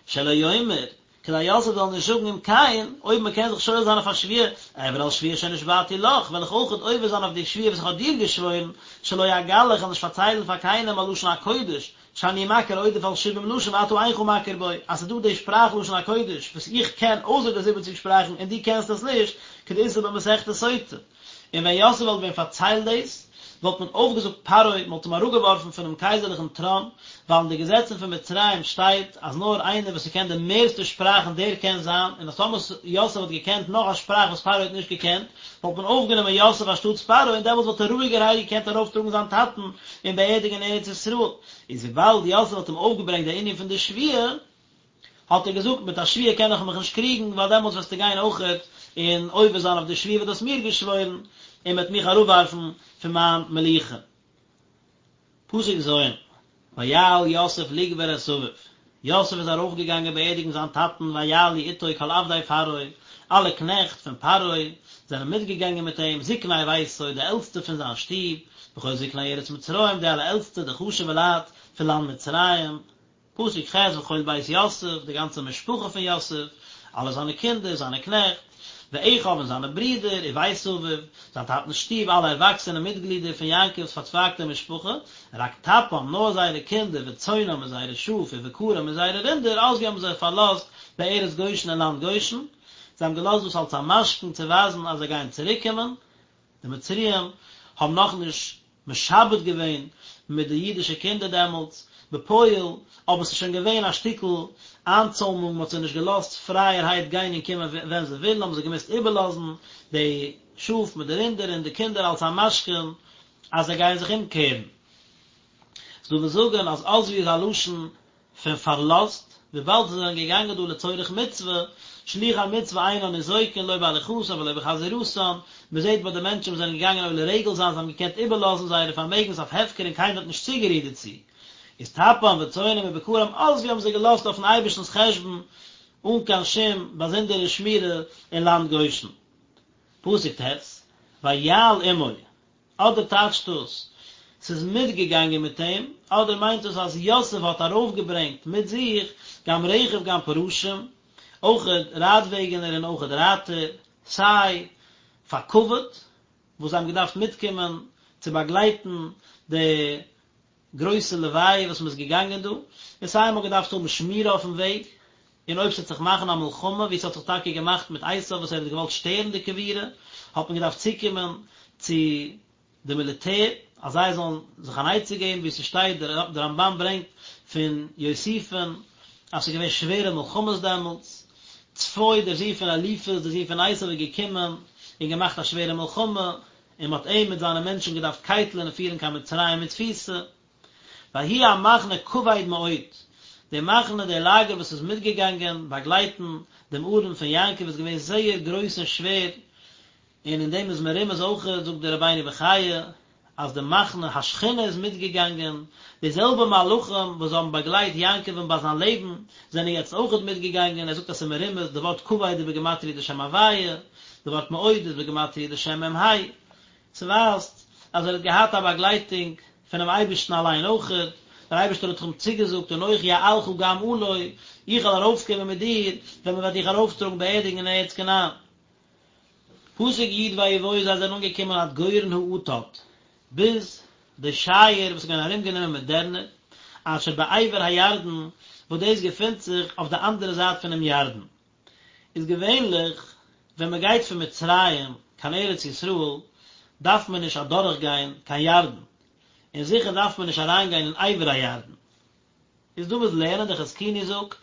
שלא יאמר, כדי יוסף זאל נישט זאגן אם כן, אויב מען קען זיך שואל זיין אויף א שבועה, אעבור על שבועה שנשבעתי לך, וועל איך אויכעט עובר זיין אויף די שבועה וואס איך האב דיר געשוואוירן, שלא אגלה, איך וועל נישט פארציילן פאר קיינעם על לשון הקודש, שאני מכיר עודף על שבעים לשון ואתה אינך מכיר בו, אז ס'איז דא די שפראך לשון הקודש וואס איך קען אויסער די זיבעציג שפראכן און דו קענסט עס נישט, כדאיתא במסכת סוטה. און ווען יוסף וואלט ווען פארציילט דאס, וואלט מען אויפגעזאגט פרעה, מען וואלט אים אראפגעווארפן פונעם קייזערליכן טראן, ווייל אין די געזעצן פון מצרים שטייט אז נאר איינער וואס ס'קען די מערסטע שפראכן דער קען זיין, און אז טאמער יוסף וואלט געקענט נאך א שפראך וואס פרעה האט נישט געקענט, וואלט מען אויפגענומען יוסף אנשטאטס פרעה, און דעמאלטס וואלט ער רואיגערהייט געקענט ארויפטראגן זיין טאטן און באערדיגן אין ארץ ישראל. איז וויבאלד יוסף האט אים אויפגעברענגט די ענין פון די שבועה, האט ער געזאגט, מיט א שבועה קען איך מיך נישט קריגן, ווייל דעמאלטס וועסטו גיין אויכעט און עובר זיין אויף די שבועה וואס דו האסט מיר געשוואוירן, און מ'וועט מיך אראפווארפן פון מיין מלוכה. פסוק ז', ויעל יוסף לקבור את אביו, יוסף איז ארויפגעגאנגען באערדיגן זיין טאטן, ויעלו איתו כל עבדי פרעה, אלע קנעכט פון פרעה זענען מיטגעגאנגען מיט אים, זקני ביתו, די עלטסטע פון זיין שטוב, וכל זקני ארץ מצרים, די אלע עלטסטע, די חשוב'ע לייט פון לאנד מצרים. פסוק ח' וכל בית יוסף, די גאנצע משפחה פון יוסף, אלע זיינע קינדער, זיינע קנעכט, ואחיו און זיינע ברידער, ובית אביו, זיין טאטנ'ס שטוב, אלע ערוואקסענע מיטגלידער פון יעקב'ס פארצווייגטע משפחה, רק טפם, נאר זייערע קינדער, וצאנם און זייערע שאף, ובקרם און זייערע רינדער, עזבו האבן זיי פארלאזט בארץ גושן אין לאנד גושן, זיי האבן געלאזט דאס אלס א משכון צו ווייזן אז זיי גייען צוריקקומען, די מצריים האבן נאכנישט משעבד געווען מיט די אידישע קינדער דעמאלטס, בפועל, אבער ס'איז שוין געווען א שטיקל איינצוימונג, מ'האט זיי נישט געלאזט פרייערהייט גיין און קומען ווען זיי ווילן, האבן זיי געמוזט איבערלאזן די שאף מיט די רינדער און די קינדער אלס א משכון אז זיי גייען זיך אומקערן. ס'דא וואס זאגן אז עזבו איז א לשון פון פארלאזט, וויבאלד זיי זענען געגאנגען דא לצורך מצוה, שלוחי מצוה אינן ניזוקין לא בהליכתן ולא בחזירתן, מען זעט ביי די מענטשן וואס זענען געגאנגען עולה רגל זיין, זיי האבן געקענט איבערלאזן זייערע פארמעגנס אויף הפקר און קיינער האט נישט צוגערירט דערצו, איז טפם וצאנם ובקרם עזבו האבן זיי געלאזט אויפן אייבערשטנ'ס חשבון אן קיין שום באזונדערע שמירה אין לאנד גושן. פסוק ט', ויעל עמו. אדער טייטשט דאס ס'איז מיטגעגאנגען מיט אים, אדער מיינט דאס אז יוסף האט ארויפגעברענגט מיט זיך גם רכב גם פרשים, אויכעט רייטוועגענער און אויכעט רייטער, סיי פאר כבוד, וואס זיי האבן געדארפט מיטקומען צו באגלייטן די גרויסע לוויה וואס מ'איז געגאנגען דא, און סיי מ'האט געדארפט האבן שמירה אויפן וועג, און אויב ס'וועט זיך מאכן א מלחמה, ווי ס'האט זיך טאקע געמאכט מיט עשיו וואס ער האט געוואלט שטערן די קבורה, האט מען געדארפט צוקומען צו די מיליטער, אז זיי זאלן זיך אן עצה געבן, ווי ס'שטייט, דער רמב"ן ברענגט פון יוסיפון, אז ס'איז געווען שווערע מלחמות דעמאלטס, צפו דער זון פון אליפז, דער זון פון עשיו איז געקומען און געמאכט א שווערע מלחמה, און מ'האט אים מיט זיינע מענטשן געדארפט קייטלען און פירן קיין מצרים אין תפיסה. ויהי המחנה כבד מאוד, די מחנה, די לאגער וואס איז מיטגעגאנגען באגלייטן דעם ארון פון יעקב איז געווען זייער גרויס און שווער, און אין דעם איז מרומז אויכעט, זאגט דער רבינו בחיי, אז די מחנה השכינה איז מיטגעגאנגען, די זעלבע מלאכים וואס האבן באגלייט יעקב'ן ביי זיין לעבן, זענען יעצט אויכעט מיטגעגאנגען, ער זאגט אז ס'איז מרומז, די ווארט כבד איז בגימטריא די שם הוויה, די ווארט מאוד איז בגימטריא די שם מ"ה, ס'ווייזט אז ער האט געהאט א באגלייטונג פונעם אייבערשטן אליין אויכעט, דער אייבערשטער האט אים צוגעזאגט אנכי אעלך גם עלה, איך וועל ארויפקומען מיט דיר ווען מען וועט דיך ארויפטראגן באערדיגן אין ארץ כנען. פסוק י' ויבואו זיי זענען אנגעקומען עד גורן האטד, ביז די שייער וואס איז געווען ארומגענומען מיט דערנער, אשר בעבר הירדן, וואס דאס געפינט זיך אויף די אנדערע זייט פונעם ירדן. איז געווענליך ווען מען גייט פון מצרים קיין ארץ ישראל דארף מען נישט אדורך גיין קיין ירדן, און זיכער דארף מען נישט אריין גיין אין עבר הירדן. איז דא וואס לערנען, דער חזקוני זאגט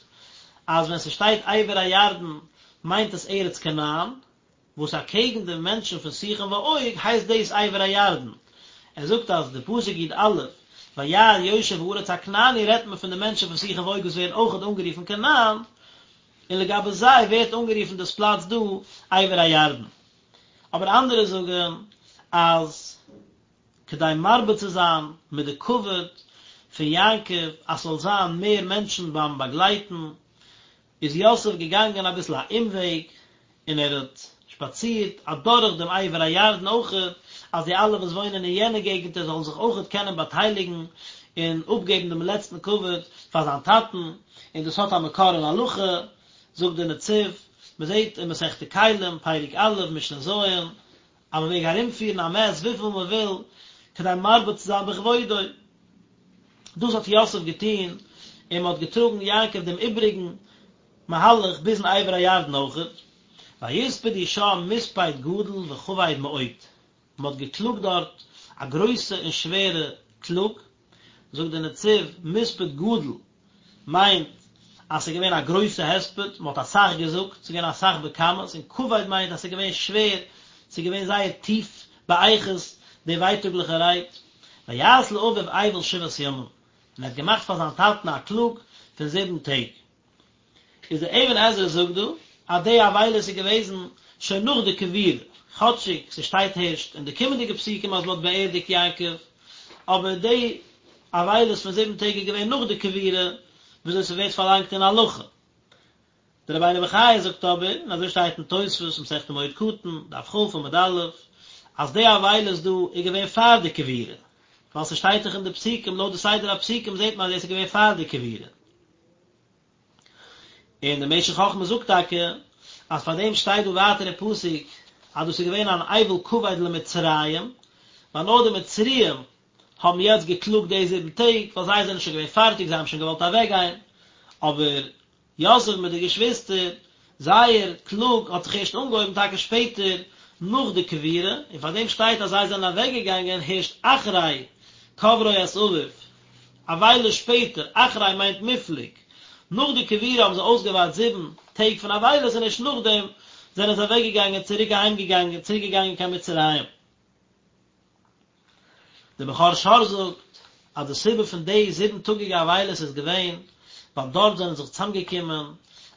אז ווען ס'שטייט עבר הירדן מיינט עס ארץ כנען, וואס אקעגן די מענטשן פון סיחון ועוג הייסט דאס עבר הירדן. ער זאגט אז די פסוק י"א וירא יושב הארץ הכנעני רעדט מען פון די מענטשן פון סיחון ועוג וואס ווערן אויכעט אנגערופן כנען, און לגבי זיי ווערט אנגערופן דאס פלאץ דא עבר הירדן. אבער אנדערע זאגן אז כדי מרבה צו זיין מיט די כבוד פון יעקב אז ס'זאל זיין מער מענטשן ביים באגלייטן, איז יוסף געגאנגען אביסל א אומוועג, און ער האט שפאצירט אדורך דעם עבר הירדן אויכעט, אז די אלע וואס וואוינען אין יענע געגנטער זאלן זיך אויכעט קענען באטייליגן און אפגעבן דעם לעצטן כבוד פאר זיין טאטן, און דאס האט א מקור אין הלכה, זאגט דער נציב, מען זעט אין מסכת כלים, פרק א', משנה ז', אז מען מעג ארומפירן א מת וויפיל מען וויל, כדי מרבה צו זיין בכבודו. דאס האט יוסף געטון, און מען האט געטראגן יעקב דעם איבריגן מהלך ביזן עבר הירדן אויכעט. ויספדו שם מספד גדול וכבד מאוד, מען האט געקלאגט דארט א גרויסע און שווערע קלאג, זאגט דער נציב, מספד גדול מיינט אז ס'איז געווען א גרויסע הספד, מען האט אסאך געזאגט, ס'איז געווען אסאך בכמות, און כבד מיינט אז ס'איז געווען שווער, ס'איז געווען זייער טיף באיכות די ווייטאגליכע רייד. ויעש לאביו אבל שבעת ימים, און ער האט געמאכט פאר זיין טאטן א קלאג פון זיבן טעג. איז דער אבן עזרא זאגט דא אז די אבילות איז געוועזן שוין נאך די קבורה, כאטשיג ס'שטייט הערשט אין די קומענדיגע פסוקים אז מ'האט באערדיגט יעקב, אבער די אבילות פון זיבן טעג איז געווען נאך די קבורה, וויאזוי ס'ווערט פארלאנגט אין הלכה. דער רבינו בחיי זאגט אבער, און אזוי שטייט אין תוספות מסכת מועד קטן, דף כ עמוד א', אז די אבילות דא איז געווען פאר די קבורה, ווייל ס'שטייט דאך אין די פסוקים, לויט די סדר הפסוקים זעט מען אז דאס איז געווען פאר די קבורה. און דער משך חכמה זאגט טאקע אז פאר דעם שטייט דא ווייטער אין פסוק אז דאס איז געווען אן אבל כבד למצרים, ווייל נאר די מצריים האבן יעצט געקלאגט די זיבן טעג, ווייל זיי זענען שוין געווען פארטיג, זיי האבן שוין געוואלט אוועקגיין, אבער יוסף מיט די געשוויסטער, זייער קלאג האט זיך ערשט אנגעהויבן טאקע שפעטער נאך די קבורה, און פאר דעם שטייט אז זיי זענען אוועקגעגאנגען הערשט אחרי קברו את אביו, א וויילע שפעטער, אחרי מיינט מופלג, נאך די קבורה האבן זיי אויסגעווארט זיבן טעג פון אבילות און ערשט נאכדעם זענען זיי אוועקגעגאנגען צוריק אהיימגעגאנגען צוריק געגאנגען קיין מצרים. דער בכור שור זאגט אז די סיבה פון די זיבן טאגיגע אבילות איז געווען ווייל דארט זענען זיך צוזאמגעקומען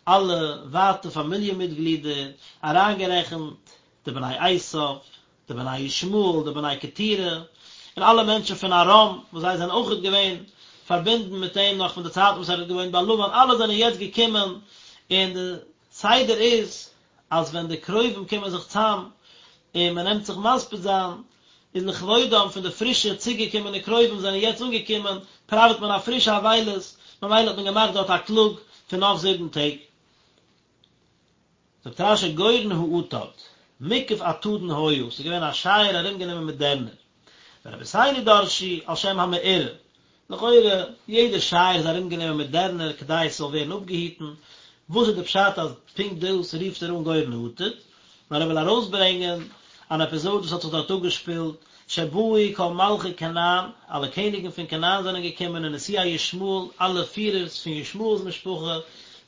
אלע ווייטע פאמיליע מיטגלידער, אריינגערעכנט די בני עשיו, די בני ישמעאל, די בני קטורה, און אלע מענטשן פון ארם, וואס זיי זענען אויכעט געווען פארבינדן מיט אים נאך פון די צייטן וואס ער האט געוואוינט ביי לבן, אלע זענען יעצט געקומען, און די סדר איז אז ווען די קרובים קומען זיך צאם און מען נעמט זיך מספיד זיין, איז לכבודם פון די פרישע צוגעקומענע קרובים זענען יעצט אנגעקומען, פראוועט מען א פרישע אבילות, ממילא האט מען געמאכט דארט א קלאג פון נאך זיבן טעג. זאגט רש"י גורן האטד, מוקף אטדין היה, ס'איז געווען א שייער ארומגענומען מיט דערנער. ורבותינו דרשו על שם המאורע, לכאורה יעדע שייער איז ארומגענומען מיט דערנער כדי עס זאל ווערן אפגעהיטן, וואס איז די פשט אז פונקט דאס רופט ער אן גורן האטד? נאר ער וויל ארויסברענגען אן עפיזאד וואס האט זיך דארט אפגעשפילט, שבאו כל מלכי כנען, אלע קעניגן פון כנען זענען געקומען ונשיאי ישמעאל, אלע פירערס פון ישמעאל'ס משפחה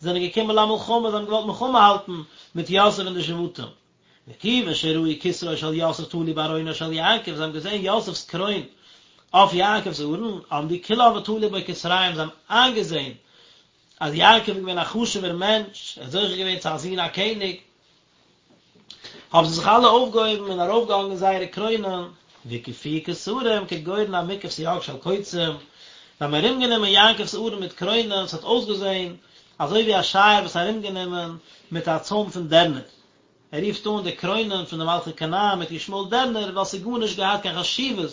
זענען געקומען למלחמה, זיי האבן געוואלט מלחמה האלטן מיט יוסף און די שבטים. וכיוון שראו כתרו של יוסף תלוי בארונו של יעקב, זיי האבן געזען יוסף'ס קרוין אויף יעקב'ס ארון, עמדו כולם ותלו בו כתריהם, זיי האבן איינגעזען אז יעקב איז געווען א חשוב'ער מענטש, ער האט זוכה געווען צו א זון א קעניג, האבן זיי זיך אלע אויפגעהויבן און ארויפגעהאנגען זייערע קרוינען, והקיפוהו כתרים כגורן המוקף סייג של קוצים, זיי האבן ארומגענומען יעקב'ס ארון מיט קרוינען, ס'האט אויסגעזען אזוי ווי א שייער וואס איז ארומגענומען מיט א צוים פון דערנער. ער רופט אן די קרוינען פון די מלכי כנען מיט ישמעאל דערנער ווייל ס'איז גארנישט געהאט קיין חשיבות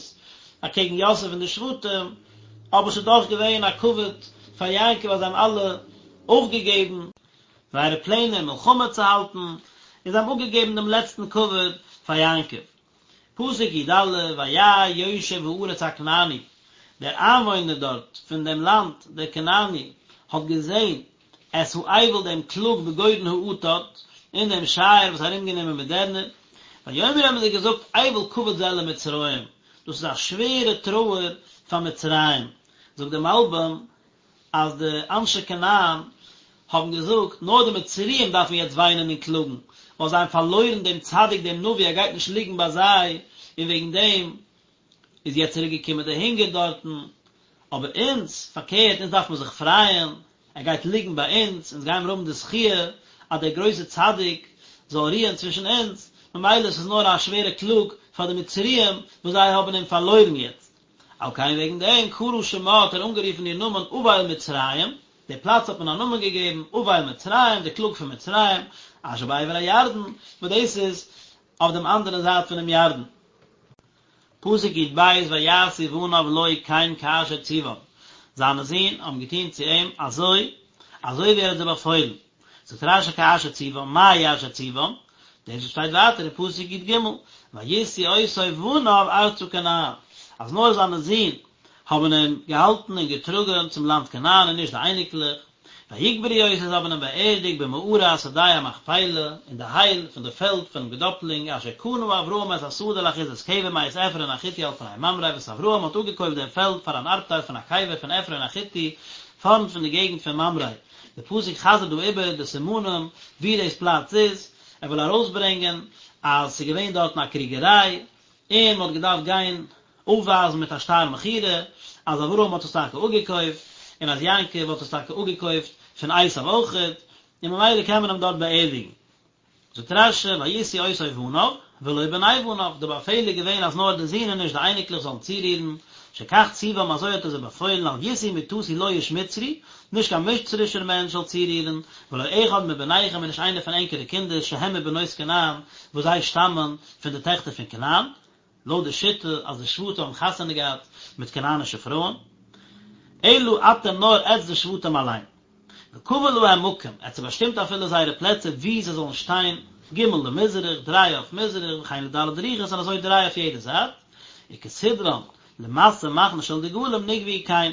אקעגן יוסף און די שבטים, אבער ס'איז דאך געווען א כבוד פאר יעקב אז זיי האבן אלע אויפגעגעבן זייערע פלענער מלחמה צו האלטן, און זיי האבן אפגעגעבן דעם לעצטן כבוד פאר יעקב. פסוק י"א, וירא יושב הארץ הכנעני, דער איינוואוינער דארט פון דעם לאנד, דער כנעני, האט געזען את האבל דעם קלאג בגורן האטד, אין דעם שייער וואס איז ארומגענומען מיט דערנער, ויאמרו האבן זיי געזאגט אבל כבד זה למצרים, דאס איז א שווערע טרויער פאר מצרים, זאגט דער מלבי"ם אז די אנשי כנען האבן געזאגט, נאר די מצריים דארפן יעצט וויינען און קלאגן, ווייל זיי האבן פארלוירן דעם צדיק דעם נביא, ער גייט נישט ליגן ביי זיי, און וועגן דעם איז יעצט צוריק געקומען די הונגער דארטן, אבער אונז, פארקערט, אונז דארף מען זיך פרייען, ער גייט ליגן ביי אונז, אונז גיימיר האבן די זכיה אז דער גרויסער צדיק זאל רוען צווישן אונז, ממילא עס איז נאר א שווערע קלאג פאר די מצריים וואס זיי האבן אים פארלוירן יעצט. על כן וועגן דעם קרא שמה האט ער אנגערופן איר נאמען אבל מצרים, די פלאץ האט מען א נאמען געגעבן אבל מצרים, די קלאג פון מצרים, אשר בעבר הירדן, וואס דאס איז אויף דעם אנדערן זייט פונעם ירדן. פסוק י"ב ויעשו בניו לו כן כאשר צום, זיינע זין האבן געטון צו אים אזוי אזוי ווי ער האט זיי באפוילן, זאגט רש"י כאשר צום, מהו אשר צום, דאס וואס שטייט ווייטער אין פסוק י"ג, וישאו אותו בניו ארצה כנען, אז נאר זיינע זין האבן אים געהאלטן און געטראגן צום לאנד כנען און נישט די אייניקלעך, ויקברו אותו זיי האבן אים באערדיגט במערת שדה המכפלה, אין די הייל פון די פעלד פונעם געדאפלינג, אשר קנה אברהם את השדה לאחוזת קבר מאת עפרון החתי על פני ממרא, וואס אברהם האט אפגעקויפט דעם פעלד פאר אן ארבטייל פון א קבר פון עפרון החתי, פארנט פון די געגנט פון ממרא. די פסוק חזר'ט דא איבער די סימנים וואו דאס פלאץ איז, ער וויל ארויסברענגען אז ס'איז געווען דארטן א קריגעריי, און מ'האט געדארפט גיין אויפווייזן מיט א שטר מכירה אז אברהם האט עס טאקע אפגעקויפט, און אז יעקב האט עס טאקע אפגעקויפט פון עשיו אויכעט, און ממילא קען מען אים דארט באערדיגן. זאגט רש"י וישאו אותו בניו ולא בני בניו, די באפעל איז געווען אז נאר די זין און נישט די אייניקלעך זאלן צורירן, שכך צום אזוי האט ער זיי באפוילן אל ישאו מטתי לא איש מצרי, נישט קיין מצרישער מענטש זאל צורירן, ולא אחד מבניכם און נישט איינער פון ענקערע קינדער שהם מבנות כנען, וואס זיי שטאמען פון די טעכטער פון כנען. לויט די שיטה אז די שבטים האבן חתונה געהאט מיט כנענישע פרויען, אלא אתם נאר עטץ די שבטים אליין. וקבע להם מקום, ער האט זיי באשטימט אפילו זייערע פלעצער וואו זיי זאלן שטיין, ג' למזרח, דריי אויף מזרח, וכן לד' רוחות און אזוי דריי אויף יעדע זייט, וכסדרן, למסע מחנה של דגלים נקבעו כן.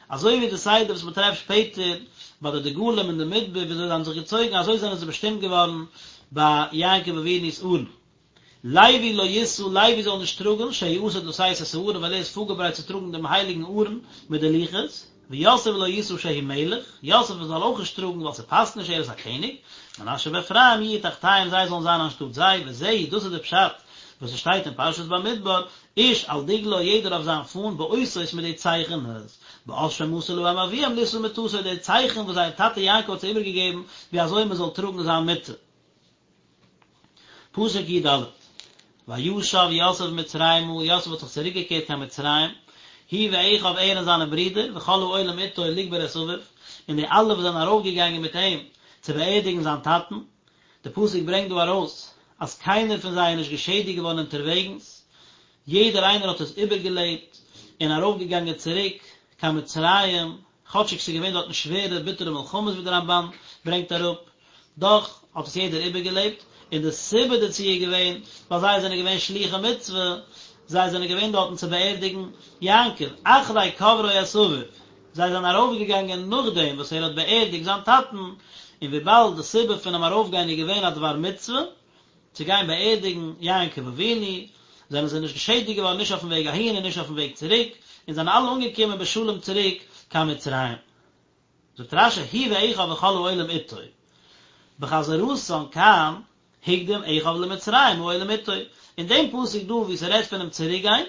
אזוי ווי די סדר וואס מען טרעפט שפעטער ביי די דגלים אין די מדבר ווי אזוי זיי האבן זיך געצויגן אזוי זענען זיי באשטימט געווארן ביי יעקב אבינו'ס ארון. לוי לא ישא, לוי זאל נישט טראגן, שהוא עתיד לשאת את הארון, ווייל ער איז פארגעברייט צו טראגן דעם הייליגן ארון מיט די לוחות, ויוסף לא ישא שהוא מלך, יוסף זאל אויך נישט טראגן ווייל ס'פאסט נישט ער איז א קעניג, מנשה ואפרים יהיו תחתיהם זיי זאלן זיין אנשטאט זיי, וזהו, דאס איז די פשט וואס עס שטייט אין פרשת במדבר, איש על דגלו יעדער אויף זיין פאן, באותות מיט די צייכענעס, באות שמסר להם אביהם לישא מטתו די צייכן וואס זייער טאטע יעקב האט זיי איבערגעגעבן ווי אזוי מען זאל טראגן זיין מיטה. פסוק י"ד, וישב יוסף מצרימה, יוסף האט זיך צוריקגעקערט קיין מצרים, הוא ואחיו ער און זיינע ברידער, וכל העולים איתו לקבור את אביו, און די אלע וואס זענען ארויפגעגאנגען מיט אים צו באערדיגן זיין טאטן. די פסוק ברענגט דא ארויס אז קיינער פון זיי איז נישט געשעדיגט געווארן אונטערוועגנס. יעדער איינער האט עס איבערגעלעבט און ארויפגעגאנגען צוריק קיין מצרים, כאטשיג ס'איז געווען דארטן שווערע ביטערע מלחמות ווי דער רמב"ן ברענגט אראפ, דאך האט עס יעדער איבערגעלעבט, און די סיבה דערצו איז געווען ווייל זיי זענען געווען שלוחי מצוה, זיי זענען געווען דארטן צו באערדיגן יעקב, אחרי קברו את אביו, זיי זענען ארויפגעגאנגען נאכדעם וואס ער האט באערדיגט זיין טאטן, און וויבאלד די סיבה פונעם ארויפגיין איז געווען א דבר מצוה, צו גיין באערדיגן יעקב אבינו, זענען זיי נישט געשעדיגט געווארן נישט אויפן וועג אהין און נישט אויפן וועג צוריק, און זענען אלע אנגעקומען בשלום צוריק קיין מצרים. זאגט רש"י הוא ואחיו וכל העולים איתו, בחזרתן כאן הקדים אחיו למצרים העולים איתו, אין דעם פסוק דא וואו ס'רעדט פונעם צוריקגיין,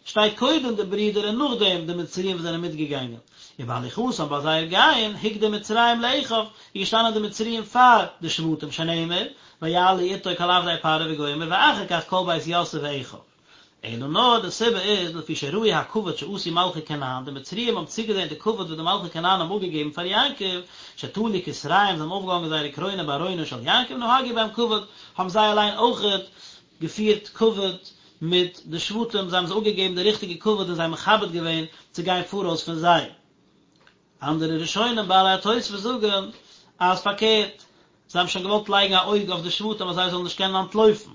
שטייט קודם די ברידער און נאכדעם די מצריים וואס זענען מיטגעגאנגען, ובהליכתם ביי זייער גיין הקדים מצרים לאחיו, איז געשטאנען די מצריים פאר די שבטים שנאמר ויעלו איתו כל עבדי פרעה וגומר ואחר כך כל בית יוסף ואחיו. אלא נאר די סיבה איז לפי שראו הכבוד שעשו מלכי כנען, די מצריים האבן צוגעזען די כבוד וואס די מלכי כנען האבן אפגעגעבן פאר יעקב, שתלו כתריהם זיי האבן אויפגעהאנגען זייערע קרוינען בארונו של יעקב נהגו בהם כבוד, האבן זיי אליין אויכעט געפירט כבוד מיט די שבטים, זיי האבן זיי אפגעגעבן די ריכטיגע כבוד און זיי מכבד געווען צו גיין פאראויס פון זיי. אנדערע ראשונים בעלי התוספות זאגן אז פארקערט, זיי האבן שוין געוואלט לייגן א אויג אויף די שבטים אז זיי זאלן נישט קענען אנטלויפן,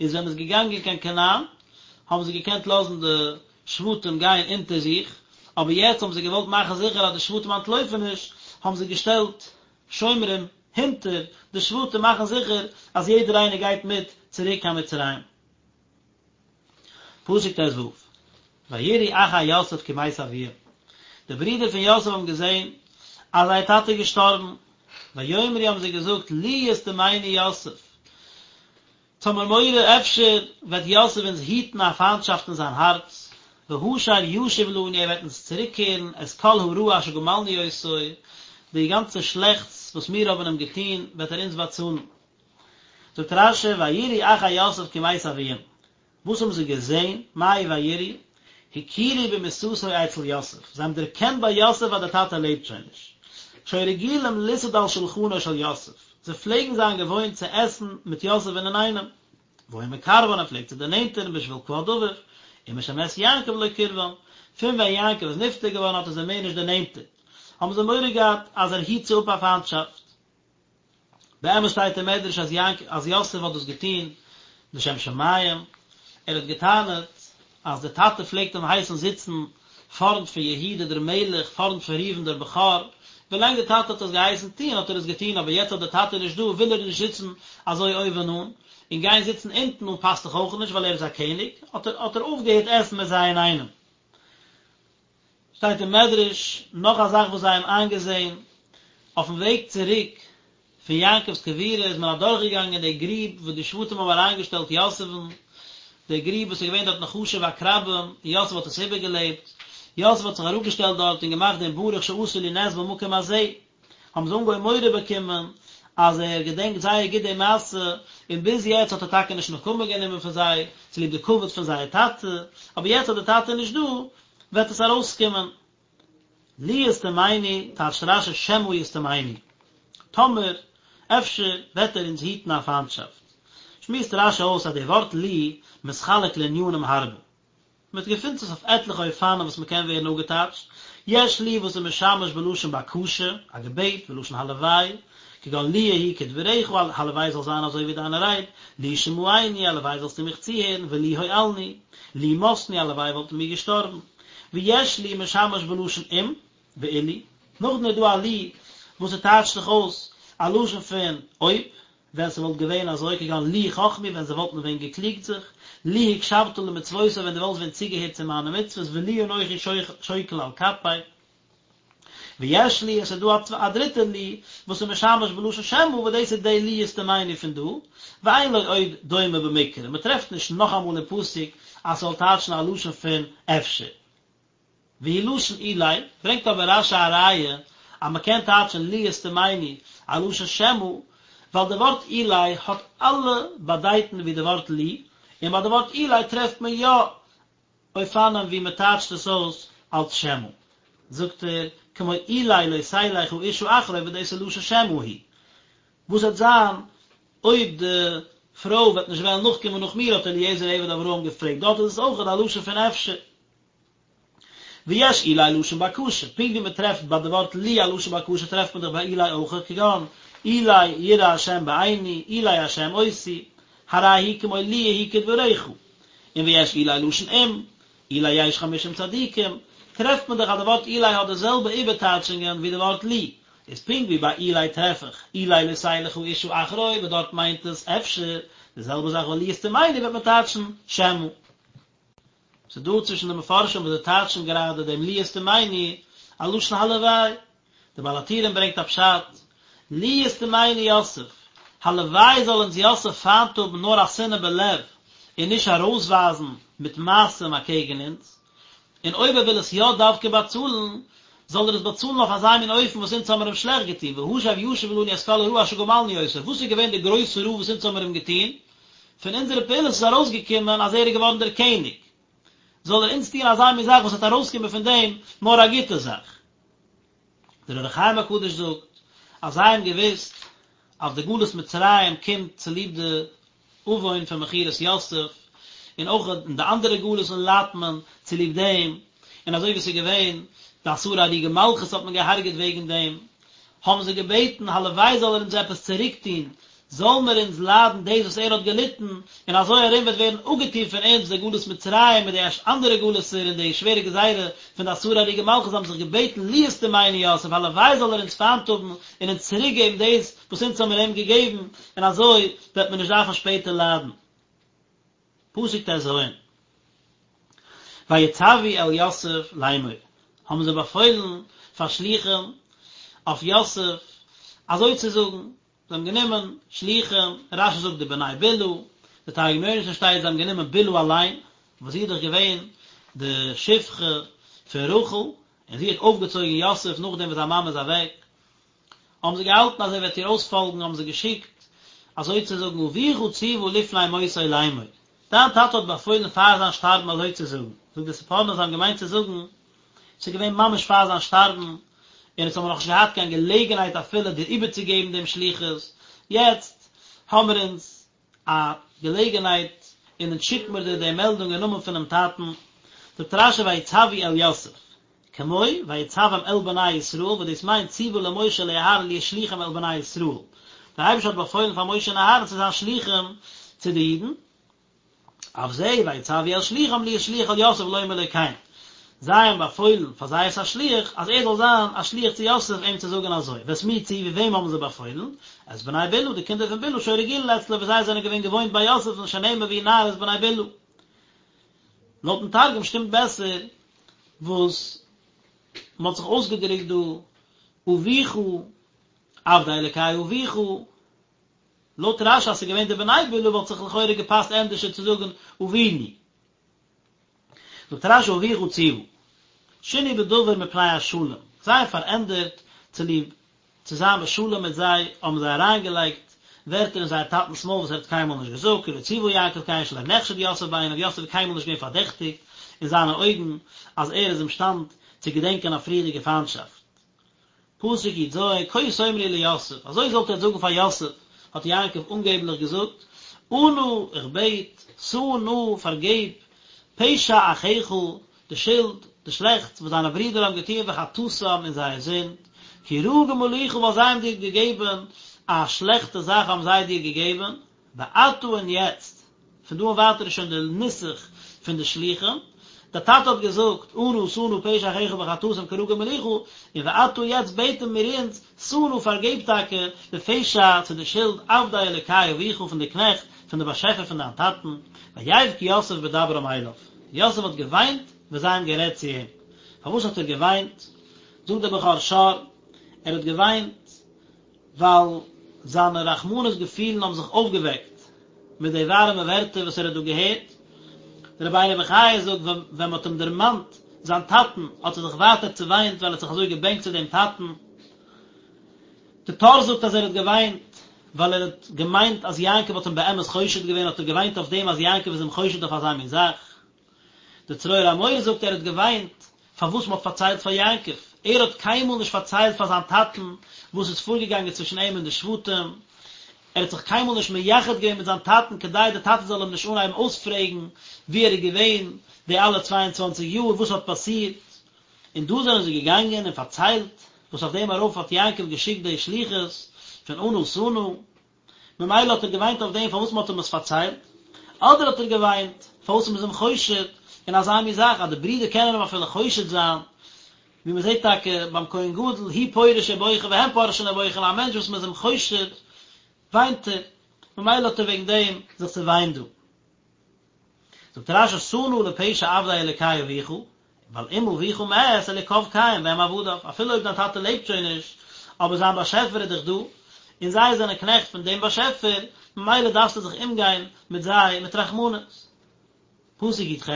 איז ווען מ'איז געגאנגען קיין כנען האבן זיי געקענט לאזן די שבטים גיין אונטער זיך, אבער יעצט האבן זיי געוואלט מאכן זיכער אז די שבטים אנטלויפן נישט, האבן זיי געשטעלט שומרים הינטער די שבטים מאכן זיכער אז יעדער איינער גייט מיט צוריק קיין מצרים. פסוק ט"ו, ויראו אחי יוסף כי מת אביהם, די ברידער פון יוסף האבן געזען אז זייער טאטע איז געשטארבן, ויאמרו האבן זיי געזאגט לו ישטמנו יוסף, אונז האמיר מורא אפשר וועט יוסף אונז היטן א פיינטשאפט אין זיין הארץ, והשר ישיב לנו ער וועט אונז צוריקקערן את כל הרעה אשר גמלנו אותו, די גאנצע שלעכטס וואס מיר האבן אים געטון וועט ער אונז באצאלן. זאגט רש"י ויראו אחי יוסף כי מת אביהם, וואס האבן זיי געזען, מאי ויראו? הכירו במיתתו אצל יוסף, זיי האבן דערקענט ביי יוסף אז דער טאטע לעבט שוין נישט. שהיו רגילים לסעוד על שלחנו של יוסף, זיי פלעגן זיין געוואוינט צו עסן מיט יוסף'ן אינאיינעם. והיה מקרבן, ער פלעגט זיי דערנענטערן בשביל כבוד אביו, ומשמת יעקב לא קרבן, פון ווען יעקב איז נפטר געווארן האט ער זיי מער נישט דערנענטערט, האבן זיי מורא געהאט אז ער היט זיי אפ א פיינטשאפט. באמת שטייט אין מדרש אז יעקב אז יוסף האט דאס געטון לשם שמים, ער האט געטענה'ט אז דער טאטע פלעגט אים הייסן זיצן פארנט פון יהודה דער מלך, פארנט פון ראובן דער בכור, ווילאנג דער טאטע האט עס געהייסן טון האט ער עס געטון, אבער יעצט אז דער טאטע איז נישט דא וויל ער נישט זיצן אזוי אויבן אן, און גיין זיצן אונטן אן פאסט דאך אויך נישט ווייל ער איז א קעניג, האט ער האט ער אויפגעהערט עסן מיט זיי אינאיינעם. שטייט אין מדרש נאך א זאך וואס זיי האבן איינגעזען, אויפן וועג צוריק פון יעקב'ס קבורה איז מען אדורכגעגאנגען די גריב וואס די שבטים האבן אריינגעשטעלט יוסף'ן, די גריב וואס איז געווען דארט נחשים ועקרבים, און יוסף האט עס איבערגעלעבט, יוסף האט זיך אראפגעשטעלט דארט און געמאכט דעם ברוך שעשה לי נס במקום הזה, האבן זיי אנגעהויבן מורא באקומען אז ער געדענקט זייער גוט די מעשה, און ביז יעצט האט ער טאקע נישט נקמה גענומען פון זיי צוליב די כבוד פון זייער טאטע, אבער יעצט אז די טאטע איז נישט דא, וועט עס ארויסקומען. לו ישטמנו, טייטשט רש"י שמא ישטמנו, טאמער, אפשר, וועט ער אונז היטן א פיינטשאפט. שמועסט רש"י אויס אז די ווארט לו מתחלק לענינים הרבה. מען געפינט עס אויף עטליכע אופנים וואס מען קען ווערן אפגעטייטשט, יש לו וואס איז משמש בלשון בקשה, א געבעט, ולשון הלוואי, כגון לו יהי כדבריך, הלוואי זאל זיין אזוי ווי דיינע רייד, לו שמעני, הלוואי זאלסטו מיך צוהערן, ולו הואלנו, לו מתנו, הלוואי וואלטן מיר געשטארבן. ויש לו משמש בלשון אם, ואילו, נאכדעם איז דא א לו וואס ס'טייטשט זיך אויס א לשון פון אויב, ווען ס'וואלט געווען אזוי כגון לו חכמו ווען זיי וואלטן ווען געקליגט זיך, לו הקשבת למצוותי ווען דו וואלסט ווען צוגעהערט צו מיינע מצוות ולו אנכי שוקל על כפי. ויש לו, עס איז דא א דריטע לו וואס איז משמש בלשון שמא וואס דאס איז די לו ישטמנו פון דא, ואין לו עוד דומה במקרא, מ'טרעפט נישט נאכאמאל אין פסוק אז ס'זאל טייטשן א לשון פון אפשר. והוא לשון אולי, ברענגט אבער רש"י א ראיה אז מען קען טייטשן לו ישטמנו א לשון שמא, ווייל די ווארט אולי האט אלע באדייטן ווי די ווארט לו, און ביי די ווארט אולי טרעפט מען יא אופנים ווי מען טייטשט עס אויס אלס שמא. זאגט ער, כמו אולי לא תלך האשה אחרי וואס דאס איז לשון שמא הוא. וואס וועט זיין אויב די פרוי וועט נישט וועלן נאכקומען נאך מיר האט אליעזר עבד אברהם געפרעגט, דארט איז עס אויכעט א לשון פון אפשר. ויש אולי לשון בקשה, פונקט ווי מען טרעפט ביי די ווארט לו א לשון בקשה טרעפט מען דאך ביי אולי אויך, כגון אולי יראה השם בעיני, אולי השם אותי, הרי הוא כמו לו יהי כדבריך, און ויש אולי לשון אם, אולי יש חמישים צדיקים, טרעפט מען דאך אז די ווארט אולי האט די זעלבע איבערטייטשונגען ווי די ווארט לו, איז פונקט ווי ביי אולי טרעף איך אולי לא תלך האשה אחרי וואס דארט מיינט עס אפשר, די זעלבע זאך ביי לו ישטמנו וועט מען טייטשן שמא. ס'איז דא צווישן די מפרשים וואס זיי טייטשן גראדע דעם לו ישטמנו א לשון הלוואי. דער בעל הטורים ברענגט א פשט, לו ישטמנו יוסף, הלוואי זאל אונז יוסף פיינט האבן נאר א שנאה בלב און נישט ארויסווייזן מיט מעשים אקעגן אונז, און אויב ער וויל עס יא דווקא באצאלן, זאל ער עס באצאלן אויף אזא מין אופן וואס אונז האמיר אים שלעכט געטון, והשב ישיב לנו את כל הרעה אשר גמלנו אותו, וואס איז געווען די גרויסע רעה וואס אונז האמיר אים געטון? פון אונזערע פעולות איז ארויסגעקומען אז ער איז געווארן דער קעניג, זאל ער אונז טון אזא מין זאך וואס וועט ארויסקומען פון דעם נאר א גוטע זאך. דער אור החיים הקדוש זאגט אז זיי האבן געוואוסט אז די גלות מצרים קומט צוליב די עוון פון מכירת יוסף, און אויך אין די אנדערע גלות'ן ליידט מען צוליב דעם, און אזוי ווי עס איז געווען די עשרה הרוגי מלכות האט מען געהארגעט וועגן דעם, האבן זיי געבעטן הלוואי זאל ער אונז עפעס צוריק טון, זאל מיר אונז ליידן דאס וואס ער האט געליטן, און אזוי ארום וועט ווערן אפגעטון פון אונז די גלות מצרים מיט די אנדערע גלות'ער און די שווערע גזירה פון די עשרה הרוגי מלכות, זיי האבן זיך געבעטן לו ישטמנו יוסף, הלוואי זאל ער אונז פיינט האבן און אונז צוריק געבן דאס וואס אונז האבן מיר אים געגעבן, און אזוי וועט מען נישט דארפן שפעטער ליידן. פסוק טז, ויצוו אל יוסף לאמור, האבן זיי באפוילן פאר שלוחים אויף יוסף אזוי צו זאגן, זיי האבן גענומען שלוחים, רשי זאגט די בני בלהה, די תרגום יונתן שטייט זיי האבן גענומען בלהה אליין, וואס זי איז דאך געווען די שפחה פון רחל, און זי האט אויפגעצויגן יוסף נאכדעם וואס זיין מאמע איז אוועק, האבן זיי געהאלטן אז ער וועט איר אויספאלגן, האבן זיי געשיקט אזוי צו זאגן, אביך ציוה לפני מותו לאמור, דיין טאטע האט באפוילן פאר זיין שטארבן אזוי צו זאגן, זאגט די ספורנו זיי האבן געמיינט צו זאגן, ס'איז געווען ממש פאר זיין שטארבן, און אונז האבן נאכנישט געהאט קיין געלעגנהייט אפילו דיר איבערצוגעבן דעם שליחות, יעצט האמיר אונז א געלעגנהייט און אונז שיקט מיר דיר די מעלדונג אין נאמען פונעם טאטן, זאגט רשי ויצוו אל יוסף, כמו ויצום אל בני ישראל, וואס דאס מיינט ציוה למשה ולאהרן להיות שלוחים אל בני ישראל, דער אייבערשטער האט באפוילן פאר משה און אהרן צו זיין שלוחים צו די אידן, אף זה ויצוו אל שלוחם להיות שליח אל יוסף לומר לו כן, זיי האבן באפוילן פאר זייערס א שליח אז ער זאל זיין א שליח צו יוסף אים צו זאגן אזוי, ואת מי ציוו וועם האבן זיי באפוילן? את בני בלהה, די קינדער פון בלהה שהיו רגילין אצלו וואס זיי זענען געווען געוואוינט ביי יוסף'ן שנאמר והוא נער את בני בלהה. לויטן תרגום שטימט בעסער וואס מען האט זיך אויסגעדרוקט דא אביך עבדי אלקי אביך, לויט רשי אז ס'איז געווען די בני בלהה וואלט זיך לכאורה געפאסט ענדערשער צו זאגן אבינו. זאגט רשי אביך ציוה. שינו בדבר מפני השלום, זיי האבן פארענדערט צוליב צו זיין בשלום מיט זיי האבן זיי אריינגעלייגט ווערטער אין זייער טאטנ'ס מויל וואס ער האט קיינמאל נישט געזאגט, כי לא ציוה יעקב כן שלא נחשד יוסף בעיניו, יוסף איז קיינמאל נישט געווען פארדעכטיגט אין זיינע אויגן אז ער איז אימשטאנד צו געדענקען א פריערדיגע פיינטשאפט. פסוק י"ז, כה תאמרו ליוסף, אזוי זאלט איר זאגן פאר יוסף, האט יעקב אנגעבליך געזאגט, אנא, איך בעט, שא נא, פארגעב, פשע אחיך, די שולד, די שלעכטס, וואס דיינע ברידער האבן געטון וחטאתם און זייער זינד, כי רעה גמלוך, ווייל זיי האבן דיר געגעבן א שלעכטע זאך האבן זיי דיר געגעבן, ועתה און יעצט, פון דא און ווייטער איז שוין די נוסח פון די שלוחים, דער טאטע האט געזאגט, אנא שא נא פשע אחיך וחטאתם כי רעה גמלוך, און ועתה יעצט בעטן מיר אונז, שא נא פארגעב טאקע לפשע צו די שולד עבדי אלוקי אביך פון די קנעכט פון די באשעפער פון דיין טאטן, ויבך יוסף בדברם אליו, יוסף האט געוויינט ווען זיי האבן גערעדט צו אים, פארוואס האט ער געוויינט? זאגט דער בכור שור, ער האט געוויינט ווייל זיינע רחמנות געפילן האבן זיך אויפגעוועקט מיט די ווארעמע ווערטער וואס ער האט דא געהערט. דער רבינו בחיי זאגט, ווען מען האט אים דערמאנט זיין טאטן האט ער זיך ווייטער צעוויינט ווייל ער האט זיך אזוי געבענקט צו דעם טאטן. די טור זאגט אז ער האט געוויינט ווייל ער האט געמיינט אז יעקב האט אים באמת חושד געווען האט ער געוויינט אויף דעם אז יעקב איז אים חושד אויף אזא מין זאך. דער צרור המור זאגט ער האט געוויינט פארוואס מען האט פארציילט פאר יעקב, ער האט קיינמאל נישט פארציילט פאר זיין טאטן וואס איז פארגעגאנגען צווישן אים און די שבטים. ער האט זיך קיינמאל נישט מייחד געווען מיט זיין טאטן כדי דער טאטע זאל אים נישט אנהייבן אויספרעגן וואו ער איז געווען די אלע צוויי און צוואנציג יאר, וואס האט פאסירט, און דא זענען זיי געגאנגען און פארציילט וואס אויף דעם ארויף האט יעקב געשיקט די שליחות פון אנא שא נא, ממילא האט ער געוויינט אויף דעם פארוואס מען האט אים עס פארציילט, אדער האט ער געוויינט פארוואס מען איז אים חושד אין אזא מין זאך אז די ברידער קענען אים אפילו חושד זיין, ווי מען זעט טאקע ביים כהן גדול הוא פורש ובוכה והם פורשין ובוכין, א מענטש וואס מען איז אים חושד וויינט ער, ממילא האט ער וועגן דעם זיך צעוויינט דא. זאגט רש"י שא נא לפשע עבדי אלוקי אביך, ווייל אם אביך מת אלוקיו קיים והם עבדיו, אפילו אויב דיין טאטע לעבט שוין נישט, אבער זיין באשעפער איז דאך דא, און זיי זענען קנעכט פון דעם באשעפער, ממילא דארפסטו זיך אומגיין מיט זיי מיט רחמנות. פסוק י"ח,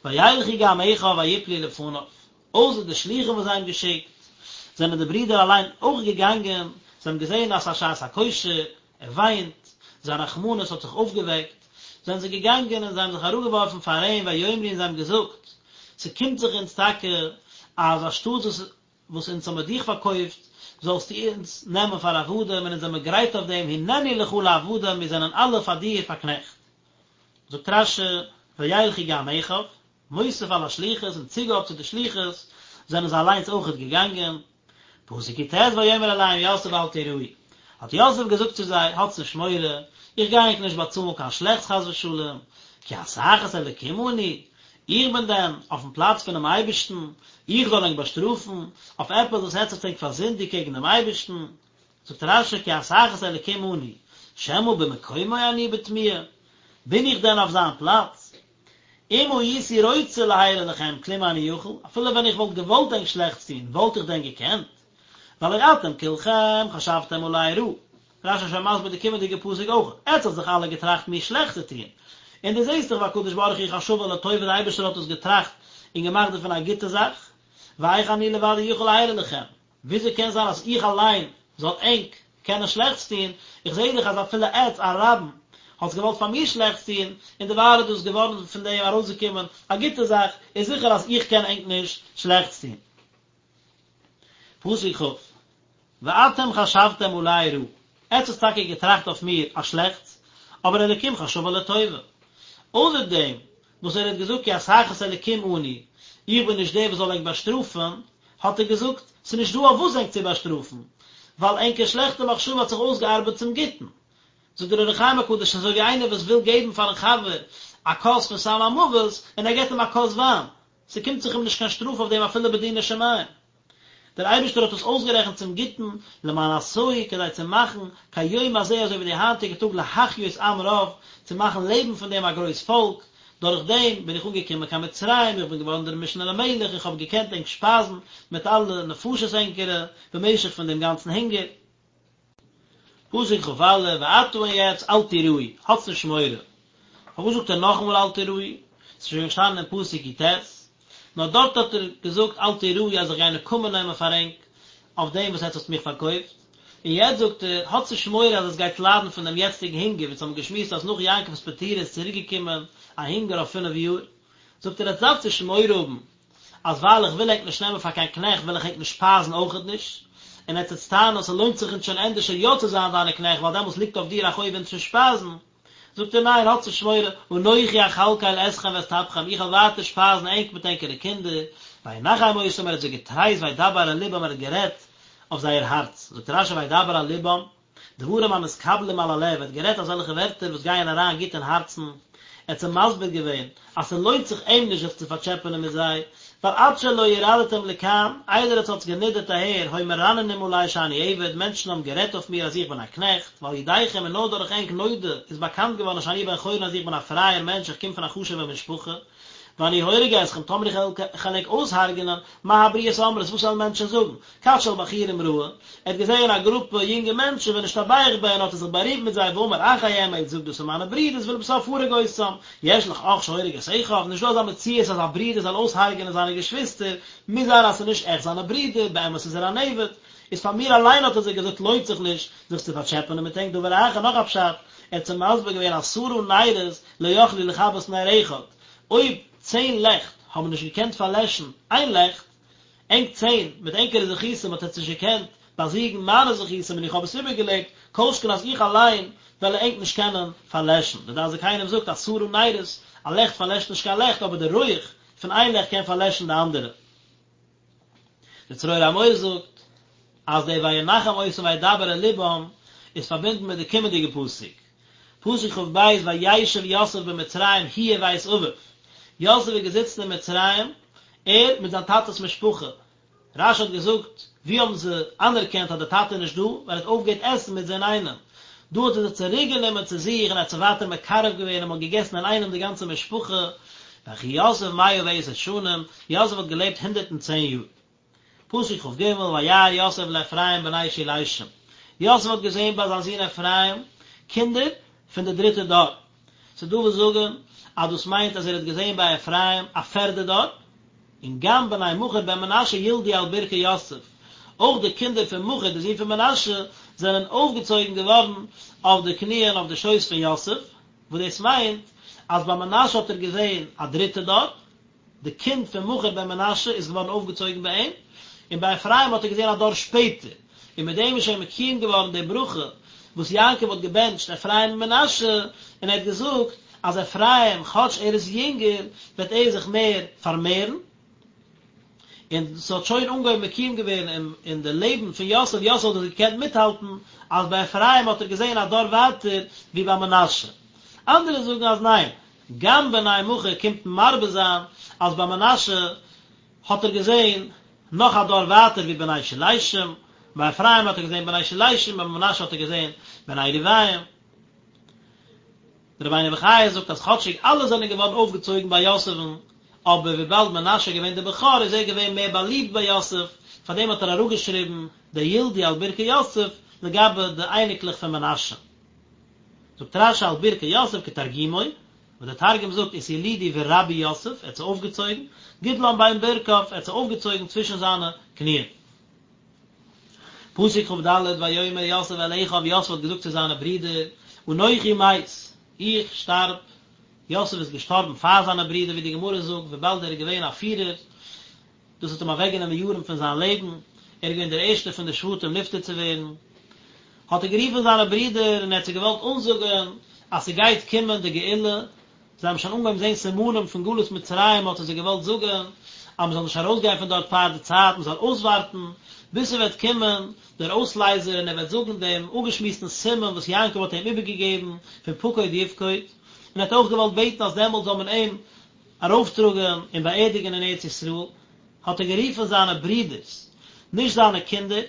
וילכו גם אחיו ויפלו לפניו, אויסער די שלוחים וואס זיי האבן געשיקט, זענען די ברידער אליין אויך געגאנגען, זיי האבן געזען אז ס'איז א שעת הכושר, ער וויינט, זיין רחמנות האט זיך אויפגעוועקט, זענען זיי געגאנגען און זיי האבן זיך אראפגעווארפן פאר אים ויאמרו און זיי האבן געזאגט, ס'קומט זיך אונז טאקע אז אנשטאט וואס וואס אונז האמיר דיך פארקויפט, זאלסטו אונז נעמען פאר עבדים, און אונז זעמיר גרייט אויף דעם, הננו לך לעבדים, מיר זענען אלע פאר דיר פאר קנעכט. זאגט רש"י, וילכו גם אחיו, מוסיף על השליחות, אין צוגאב צו די שליחות, זענען זיי אליינס אויכעט געגאנגען. פסוק י"ט ויאמר אליהם יוסף אל תיראו, האט יוסף געזאגט צו זיי, האטס נישט מורא, איך גיי ענק נישט באצאלן קיין שלעכטס חס ושלום, כי התחת אלקים אני, איך בין דען אויפן פלאץ פונעם אייבערשטן, איך זאל ענק באשטראפן אויף עפעס וואס עטץ האט ענק פארזינדיגט קעגן דעם אייבערשטן? זאגט רש"י כי התחת אלקים אני, שמא במקומו אני בתמיה, בין איך דען אויף זיין פלאץ? אם הייתי רוצה להרע לכם כלום איני יכול, אפילו ווען איך וואלט געוואלט ענק שלעכטס טון, וואלט איך דען געקענט? והלא אתם כולכם חשבתם עלי רעה. רש"י איז שוין מסביר די קומענדיגע פסוק אויך, עטץ האט זיך אלע געטראכט מיר שלעכטס צו טון, און דו זעסט דאך והקדוש ברוך הוא חשבה לטובה די אייבערשטער האט עס געטראכט און געמאכט דערפון א גוטע זאך, ואיך אני לבדי יכול להרע לכם, וויאזוי קען זיין אז איך אליין זאל ענק קענען שלעכטס טון, איך זעה דאך אז אפילו עטץ א רבים האטס געוואלט פאר מיר שלעכטס טון, און דערווייל איז דאס געווארן פון דעם ארויסגעקומען א גוטע זאך, איז זיכער אז איך קען ענק נישט שלעכטס טון. פסוק כ', ואתם חשבתם עלי רעה, עטץ האטס טאקע געטראכט אויף מיר א שלעכטס, אבער אלקים חשבה לטובה. אויסער דעם וואס ער האט געזאגט כי התחת אלקים אני, איך בין נישט דער וואס זאל ענק באשטראפן, האט ער געזאגט, ס'איז נישט דא אויף וואס ענק צו באשטראפן, ווייל ענקער שלעכטע מחשבה האט זיך אויסגעארבעט צום גוטן. זאגט דער אור החיים הקדוש, אזוי ווי איינער וואס וויל געבן פארן חבר א כוס פון סם המוות, און ער געבט אים א כוס וויין, ס'קומט זיך אים נישט קיין שטראף אויף דעם אפילו בדיני שמים. דער אייבערשטער האט עס אויסגערעכנט צום גוטן, למען עשהו, כדי צו מאכן, כיום הזה אזוי ווי די היינטיגע טאג להחיות עם רב, צו מאכן לעבן פון דעם א גרויס פאלק, דורך דעם בין איך אנגעקומען קיין מצרים, איך בין געווארן דער משנה למלך, איך האב געקענט ענק שפייזן מיט אלע נפשות ענקערע, במשך פון דעם גאנצן הונגער. פסוק כ"א, ועתה און יעצט אל תיראו, האטס נישט מורא. פארוואס זאגט ער נאכאמאל אל תיראו? ס'איז שוין געשטאנען אין פסוק י"ט, נאר דארט האט ער געזאגט אל תיראו אז איך גיי נקמה נעמען פאר ענק אויף דעם וואס עטץ האטס מיך פארקויפט, און יעצט זאגט ער, האטס נישט מורא אז עטס גייטס ליידן פון דעם יעצטיגן הונגער, ווי אונז האבן געשמועסט אז נאך יעקב'ס פטירה איז צוריק געקומען א הונגער אויף פינף יאר, זאגט ער עטס דארפטס נישט מורא האבן אז ווייל איך וויל ענק נישט נעמען פאר קיין קנעכט וועל איך ענק נישט שפייזן אויכעט נישט, און עטס וועטס טענה'ן אז ס'לוינט זיך אונז שוין ענדערשער יא צו זיין דיינע קנעכט ווייל דעמאלס ליגט אויף דיר א חוב אונז צו שפייזן, זאגט ער ניין האטס נישט מורא, אנכי אכלכל אתכם ואת טפכם איך וועל ווייטער שפייזן ענק מיט ענקערע קינדער, וינחם אותם ער האט זיי געטרייסט וידבר אל לבם ער האט גערעדט אויף זייער הארץ, זאגט רש"י וידבר אל לבם, דברים המתקבלים על הלב, ער האט גערעדט אזעלכע ווערטער וואס גייען אריין גוט אין הארצן, ער האט זיי מסביר געווען אז ס'לוינט זיך אים נישט זיך צו פארטשעפענען מיט זיי, ווייל עד שלא ירדתם לכאן, איידער עטס האטס גענידערט אהער, היו מרננים עלי שאני עבד, מענטשן האבן גערעדט אויף מיר אז איך בין א קנעכט, ועל ידיכם און נאר דורך ענק נודע איז באקאנט געווארן שאני בן חורין אז איך בין א פרייער מענטש איך קום פון א חשוב'ע משפחה, ואני הורג אתכם, טאמער איך וועל ענק אויסהרג'נען, מה הבריות אומרות, וואס וועלן מענטשן זאגן? כת של בחורים ראה, ער האט געזעהן א גרופע יונגע מענטשן ונשתבח בהן האט ער זיך בארימט מיט זיי ואמר אחי הם, ער האט געזאגט דאס זענען מיינע ברידערס ולבסוף הרג אותם, יש לך אח שהורג את אחיו, נישט דא אזא מציאות אז א ברודער זאל אויסהרג'נען זיינע געשוויסטער, מוז זיין אז ס'איז נישט עכט זיינע ברידער, באמת איז ער אן עבד, איז פאר מיר אליין האט ער זיי געזאגט לוינט זיך נישט זיך צו פארטשעפענען מיט ענק דבר אחר נאך א פשט, ער האט זיי מסביר געווען עשרה נרות לא יכלו לכבות נר אחד, אויב צען לעכט האבן נישט געקענט פארלעשן איין לעכט, ענק צען, מיט ענקערע זכותים האט עטס נישט געקענט. באזיגן מיינע זכותים און איך האב עס איבערגעלעבט, כל שכן אז איך אליין וועל ענק נישט קענען פארלעשן. דער דעת זקנים זאגט עשרה נרות, א לעכט פארלעשט נישט קיין לעכט, אבער די רויעך פון איין לעכט קען פארלעשן די אנדערע. דער צרור המור זאגט אז דער וינחם אותם וידבר אל לבם איז פארבינדן מיט די קומענדיגע פסוק, פסוק כ"ב וישב יוסף במצרים הוא ובית אביו, יוסף איז געזיצן אין מצרים, ער מיט זיין טאטע'ס משפחה, רש"י האט געזאגט, ווי האבן זיי אנערקענט אז דער טאטע איז נישט דא, ווייל ער האט אויפגעהערט עסן מיט זיי אינאיינעם. דא האט ער זיי צוריק גענומען צו זיך און ער האט זיי ווייטער מקרב געווען און מען האט געגעסן אינאיינעם די גאנצע משפחה, ויחי יוסף 110 שנים, יוסף האט געלעבט 110 יאר. פסוק כ"ג, וירא יוסף לאפרים בני שילשים, יוסף האט געזען ביי זיין זון אפרים קינדער פון די דריטע דור, ס'איז דא וואס זאגן אז דאס מיינט אז ער האט געזען ביי אפרים א פערדע דור, און גם בני מכיר בן מנשה ילדו על ברכי יוסף, אויך די קינדער פון מכיר די זון פון מנשה זענען אויפגעצויגן געווארן אויף די קניען אויף די שויס פון יוסף, וואס דאס מיינט אז ביי מנשה האט ער געזען א דריטע דור, די קינד פון מכיר בן מנשה איז געווארן אויפגעצויגן ביי אים, און ביי אפרים האט ער געזען א דור שפעטער, און מיט דעם איז שוין מקוים געווארן די ברכה וואס יעקב האט געבענטשט אפרים און מנשה, און ער האט געזאגט אז אפרים, כאטש ער איז יונגער, וועט ער זיך מער פארמערן, און ס'האט שוין אנגעהויבן מקוים געווערן אין די לעבן פון יוסף, יוסף האט דאס געקענט מיטהאלטן, אז ביי אפרים האט ער געזען א דור ווייטער ווי ביי מנשה. אנדערע זאגן אז ניין, גם בני מכיר קומט מרבה זיין אז ביי מנשה האט ער געזען נאך א דור ווייטער ווי בני שלשים, ביי אפרים האט ער געזען בני שלשים, ביי מנשה האט ער געזען בני רבעים. דער רבינו בחיי זאגט אז כאטשיג אלע זענען געווארן אויפגעצויגן ביי יוסף'ן, אבער וויבאלד מנשה איז געווען דער בכור איז ער געווען מער באליבט ביי יוסף, פארדעם האט ער אראפגעשריבן די ילדו על ברכי יוסף לגבי די אייניקלעך פון מנשה. זאגט רש"י על ברכי יוסף כתרגומו, וואס דער תרגום זאגט אתילידו ורבו יוסף, ער האט זיי אויפגעצויגן, גדלן בין ברכיו, ער האט זיי אויפגעצויגן צווישן זיינע קניען. פסוק כ"ד, ויאמר יוסף אל אחיו, יוסף האט געזאגט צו זיינע ברידער, אנכי מת, איך שטארב, יוסף איז געשטארבן פאר זיינע ברידער ווי די גמרא זאגט, וויבאלד ער איז געווען א פירער, דאס האט אים אוועקגענומען יארן פון זיין לעבן, ער איז געווען דער ערשטער פון די שבטים נפטר צו ווערן, האט ער גערופן זיינע ברידער און ער האט זיי געוואלט אנזאגן אז ס'גייט קומען די גאולה, זיי האבן שוין אנגעהויבן זען סימנים פון גלות מצרים, האט ער זיי געוואלט זאגן אז מ'זאל נישט ארויסגיין פון דארט פאר די צייט, מ'זאל אויסווארטן ביז ס'וועט קומען דער אויסלייזער און ער וועט זאגן דעם אפגעשמועסטן סימן וואס יעקב האט אים איבערגעגעבן פון פקוד יפקוד, און ער האט אויך געוואלט בעטן אז דעמאלט זאל מען אים ארויפטראגען און באערדיגען אין ארץ ישראל, האט ער גערופען זיינע ברידערס, נישט זיינע קינדער,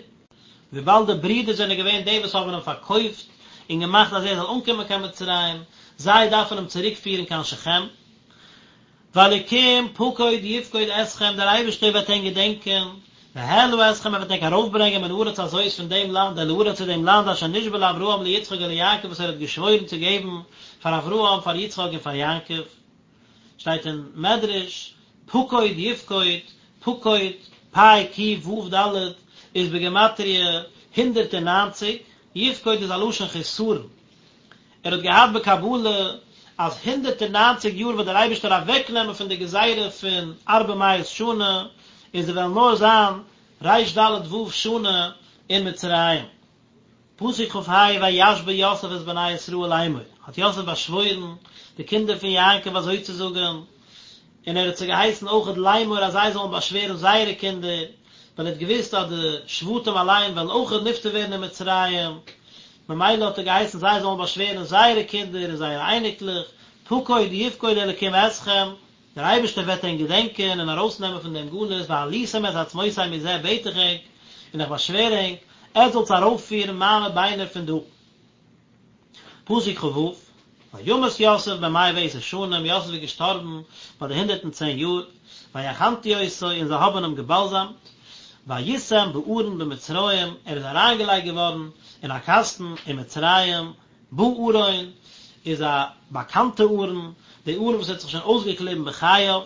וויבאלד די ברידער זענען געווען די וואס האבען אים פארקויפט און געמאכט אז ער זאל אנקומען קיין מצרים, זיי דארפען אים צוריק פירען קיין שכם. והאלקים פקוד יפקוד אתכם, דער אייבערשטער וועט ענק געדענקען, והעלה אתכם, ער וועט ענק ארויפברענגען מן הארץ הזאת פון דעם לאנד אל הארץ צו דעם לאנד אשר נשבע לאברהם ליצחק וליעקב וואס ער האט געשוואוירן צו געבן פאר אברהם פאר יצחק און פאר יעקב. שטייט אין מדרש, פקוד יפקוד, פקוד, פ' ק' ו' ד', איז בגימטריא 190, יפקוד איז א לשון חסרון. ער האט געהאט בקבלה אז 190 יאר וועט דער אייבערשטער אוועקנעמען פון די גזירה פון ארבע מאות שנה, און זיי וועלן נאר זיין ר"ד ו' שנה אין מצרים. פסוק כ"ה וישבע יוסף את בני ישראל לאמור, האט יוסף באשוואוירן די קינדער פון יעקב אזוי צו זאגן, און ער האט זיי געהייסן אויכעט לאמור אז זיי זאלן באשווערן זייערע קינדער, ווייל ער האט געוואוסט אז די שבטים אליין וועלן אויכעט נפטר ווערן אין מצרים, ממילא האט ער געהייסן זיי זאלן באשווערן זייערע קינדער און זייערע אייניקלעך, פקוד יפקוד אלקים אתכם, דער אייבערשטער וועט ענק געדענקען און ארויסנעמען פון דעם גלות, והעליתם את עצמותי מזה בעט איך ענק, און איך באשווער ענק, עטס זאלטס ארויפפירן מיינע ביינער פון דא. פסוק כ"ו, וימת יוסף בן מאה ועשר שנים, יוסף איז געשטארבן ביי די 110 יאר, ויחנטו אותו, און זיי האבן אים געבאלזאמט, ויישם בארון במצרים, ער איז אריינגעלייגט געווארן אין א קאסטן אין מצרים, בארון איז א באקאנטע ארון, די ארון וואס האט זיך שוין אויסגעקליבן בחייו,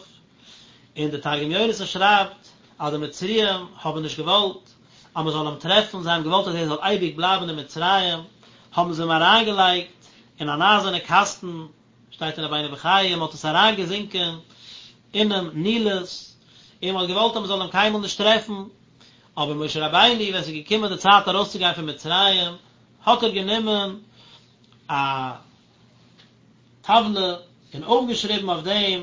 און די תרגום יונתן שרייבט אז די מצריים האבן נישט געוואלט אז מען זאל אים טרעפן, זיי האבן געוואלט אז ער זאל אייביג בלייבן אין מצרים, האבן זיי אים אריינגעלייגט אין אן אייזערנע קאסטן, שטייט אין רבינו בחיי, מען האט עס אריינגעזינקען אינעם נילוס, און מען האט געוואלט אז מען זאל אים קיינמאל נישט טרעפן. אבער משה רבינו ווען ס'איז געקומען די צייט ארויסצוגיין פון מצרים, האט ער גענומען א טבלה און אויפגעשריבן אויף דעם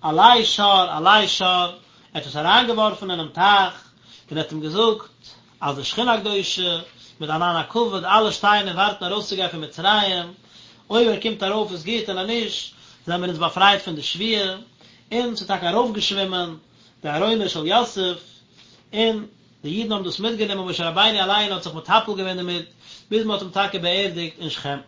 עלה שור עלה שור, ער האט עס אריינגעווארפן אינעם טייך, און ער האט אים געזאגט אז די שכינה הקדושה מיט ענן הכבוד אלע שטייען און ווארטן ארויסצוגיין פון מצרים, אויב ער קומט ארויף איז גוט און אז נישט זענען מיר אונז באפרייט פון די שבועה, און ס'איז טאקע ארויפגעשווימען די ארונו של יוסף, און די אידן האבן דאס מיטגענומען, משה רבינו אליין האט זיך מטפל געווען דערמיט, ביז מען האט אים טאקע באערדיגט אין שכם.